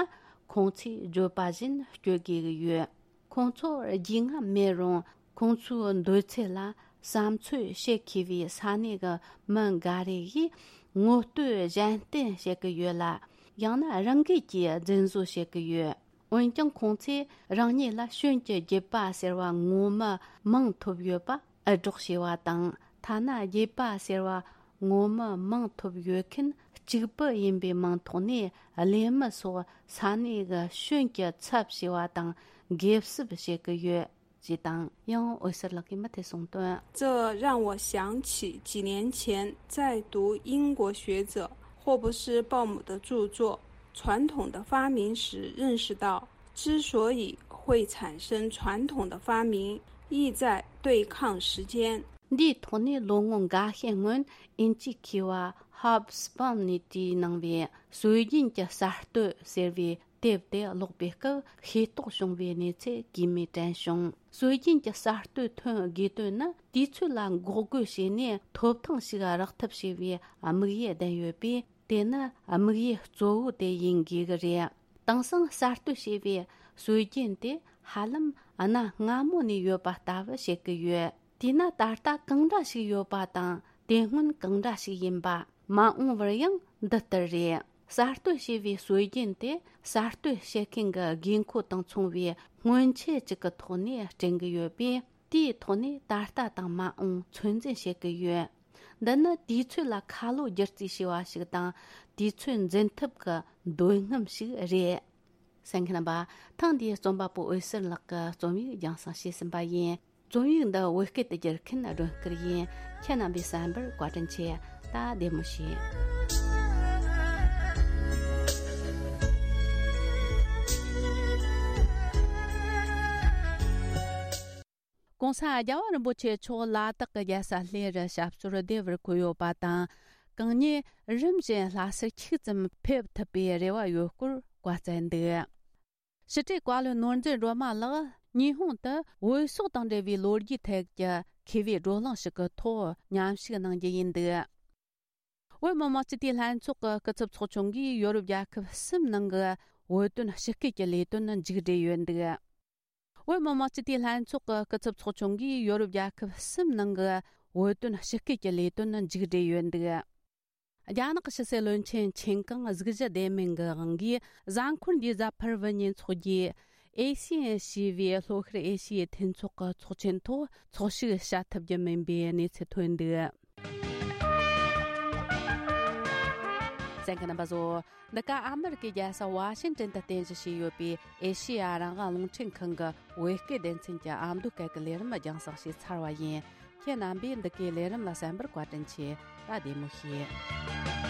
ཁོང་ཚོས་བརྗོད་པ་བཞིན་སྤྱོད་དགོས་ཀྱི་ཡོད། ཁོང་ཚོར་རྒྱུས་མངའ་མེད་རུང་། ཁོང་ཚོའི་འདོད་ཚུལ་ལ་བསམ་ཚུལ་བཤད་མཁས་པའི་ས་གནས་ཀྱི་མི་འགའ་རེ་ཡིས་ངོ་བསྟོད་གཞན་བསྟེན་བྱེད་ཀྱི་ཡོད་ལ། ཡང་ན་རང་འགུལ་གྱིས་རྫུན་བཟོ་བྱེད་ཀྱི་ཡོད། འོན་ཀྱང་། ཁོང་ཚོས་རང་ཉིད་ལ་ཞོན་གྱི་རྒྱུད་པ་ཟེར་བ་ངོ་མ་མང་ཐོབ་ཡོད་པ་འུར་སྒྲོག་བྱས་པ་དང་། ཐ་ན་རྒྱུད་པ་ཟེར་བ་ངོ་མ་མང་ཐོབ་ཡོད་མཁན་གཅིག་པུ་ཡིན་པའི་མིང་ཐོག་ནས། གླེན་མི་སོགས་ས་གནས་ཀྱི་ཞོན་གྱི་ཚབ་བྱས་པ་དང་། འགེབས་སྲིབ་བྱེད་ཀྱི་ཡོད་ཅེས་དང་། ཡང་འོད་ཟེར་ལགས་ཀྱིས་མུ་མཐུད་གསུངས་དོན། 这让我想起几年前在读英国学者霍布斯鲍姆的著作《传统的发明》时认识到，之所以会产生传统的发明，意在对抗时间。 འདིའི་ཐོག་ནས་ལོ་ངོ་འགའ་ཤས་སྔོན། ཨིན་ཇིའི་མཁས་པ་ཧོབ་སི་པམ་ནས་བྲིས་གནང་བའི་སྲོལ་རྒྱུན་གྱི་གསར་གཏོད་ཟེར་བའི་དེབ་དེ་ཀློག་པའི་སྐབས། ཤེས་རྟོགས་བྱུང་བའི་གནས་ཚུལ་གིས་མོས་དྲན་བྱུང་། སྲོལ་རྒྱུན་གྱི་གསར་གཏོད་ཐོན་དགོས་དོན་ནི། དུས་ཚོད་ལ་འགོག་རྒོལ་བྱས་ནས་ཐོབ་ཐང་ཞིག་རག་ཐབས་བྱས་པའི་དམིགས་ཡུལ་ལྡན་ཡོད་པས། དེ་ནི་དམིགས་ཡུལ་གཙོ་བོ་དེ་ཡིན་དགོས་ཀྱི་རེད། དེང་སང་གསར་གཏོད་བྱས་པའི་སྲོལ་རྒྱུན་དེ་ཧ་ལམ་གནའ་སྔ་མོ་ནས་ཡོད་པ་ལྟ་བུ་བྱེད་ཀྱི་ཡོད། དེས་ན་ད་ལྟ་གང་འདྲ་ཞིག་ཡོད་པ་དང་། དེ་སྔོན་གང་འདྲ་ཞིག་ཡིན་པ། མ་འོངས་པར་ཡང་འདི་ལྟར་རེད། གསར་གཏོད་བྱས་པའི་སྲོལ་རྒྱུན་དེ་གསར་གཏོད་བྱེད་མཁན་གྱི་དགོས་མཁོ་དང་མཚུངས་པའི་སྔོན་ཆད་ཅིག་གི་ཐོག་ནས་སྐྲུན་གྱི་ཡོད་པས། དེའི་ཐོག་ནས་ད་ལྟ་དང་མ་འོངས་ཚོད་འཛིན་བྱེད་ཀྱི་ཡོད། འདི་ནི་དུས་ཚོད་ལ་ཁ་ལོ་བསྒྱུར་རྩིས་བྱས་པ་ཞིག་དང་། དུས་ཚོད་འཛིན་ཐབས་ཀྱི་འདོད་རྔམ་ཞིག་རེད། གསན་མཁན་རྣམ་པ། ཐེངས་འདིའི་རྩོམ་པ་པོ་འོད་ཟེར་ལགས་ཀྱི་རྩོམ་ཡིག་རྒྱང་སྲིང་བྱས་ཟིན་པ་ཡིན། རྩོམ་ཡིག་འདི་བོད་སྐད་དུ་བསྒྱུར་མཁན་སྒྲོན་སྐུར་ཡིན། ཁྱེད་རྣམ་པས་གསན་པར་བཀའ་དྲིན་ཆེ། ད་བདེ་མོ་བྱོས། གོང་ས་རྒྱལ་བ་རིན་པོ་ཆེ་མཆོག་ལ་དྭགས་ཀྱི་རྒྱལ་ས་གླེ་རུ་ཞབས་སོར་བདེ་བར་འཁོད་ཡོད་པ་དང་། གང་ཉིད་རིམ་བཞིན་ལྷ་སར་ཁྱུག་ཙམ་ཕེབས་ཐུབ་པའི་རེ་བ་ཡོད་སྐོར་བཀའ་སྩལ་འདུག། ཕྱི་དྲིལ་བཀའ་བློན་ནོར་འཛིན་སྒྲོལ་མ་ལགས་ཉི་ཧོང་དུ་བོད་སོག་དང་འབྲེལ་བའི་ལོ་རྒྱུས་ཐད་ཀྱི་མཁས་པའི་བགྲོ་གླེང་ཞིག་གི་ཐོག་མཉམ་ཞུགས་གནང་རྒྱུ་ཡིན་འདུག། བོད་མི་མང་སྤྱི་འཐུས་ལྷན་ཚོགས་ཀྱི་སྐུ་ཚབ་ཚོགས་ཆུང་གིས་ཡོ་རོབ་རྒྱལ་ཁབ་གསུམ་ནང་གི་བོད་དོན་ཞི་སྐུལ་གྱི་ལས་དོན་མཇུག་སྒྲིལ་ཡོད་འདུག། བོད་མི་མང་སྤྱི་འཐུས་ལྷན་ཚོགས་ཀྱི་སྐུ་ཚབ་ཚོགས་ཆུང་གིས་ཡོ་རོབ་རྒྱལ་ཁབ་གསུམ་ནང་གི་བོད་དོན་ཞི་སྐུལ་གྱི་ལས་དོན་མཇུག་སྒྲིལ་ཡོད་འདུག། རྒྱ་ནག་གི་ཕྱི་སྲིད་བློན་ཆེན་ཆིན་ཀང་གཟུགས་གཞི་བདེ་མིན་གྱི་དབང་གིས་གཟའ་འཁོར་འདིའི་གཟའ་ཕུར་བུ་ཉིན་འཚོགས་རྒྱུའི་ཨེ་ཤི་ཡན་ཞེས་པའི་ལྷོ་ཤར་ཨེ་ཤི་ཡའི་མཐུན་ཚོགས་ཀྱི་ཚོགས་ཆེན་ཐོག་ཚོགས་ཞུགས་བྱ་ཐུབ་རྒྱུ་མིན་པའི་གནས་ཚུལ་ཐོན་འདུག། གསན་མཁན་རྣམ་པ་ཚོ། འདི་ག་ཨ་མི་རི་ཀའི་རྒྱལ་ས་ཝ་ཤིང་ཏན་དུ་རྟེན་གཞི་བྱས་ཡོད་པའི་ཨེ་ཤེ་ཡ་རང་དབང་རླུང་འཕྲིན་ཁང་གི་བོད་སྐད་སྡེ་ཚན་གྱི་ཨ་མདོ་སྐད་ཀྱི་ལས་རིམ་རྒྱང་སྲིང་བྱས་ཚར་བ་ཡིན། ཁྱེད་རྣམ་པས་འདི་གའི་ལས་རིམ་ལ་གསན་པར་བཀའ་དྲིན་ཆེ། ད་བདེ་མོ་བྱོས།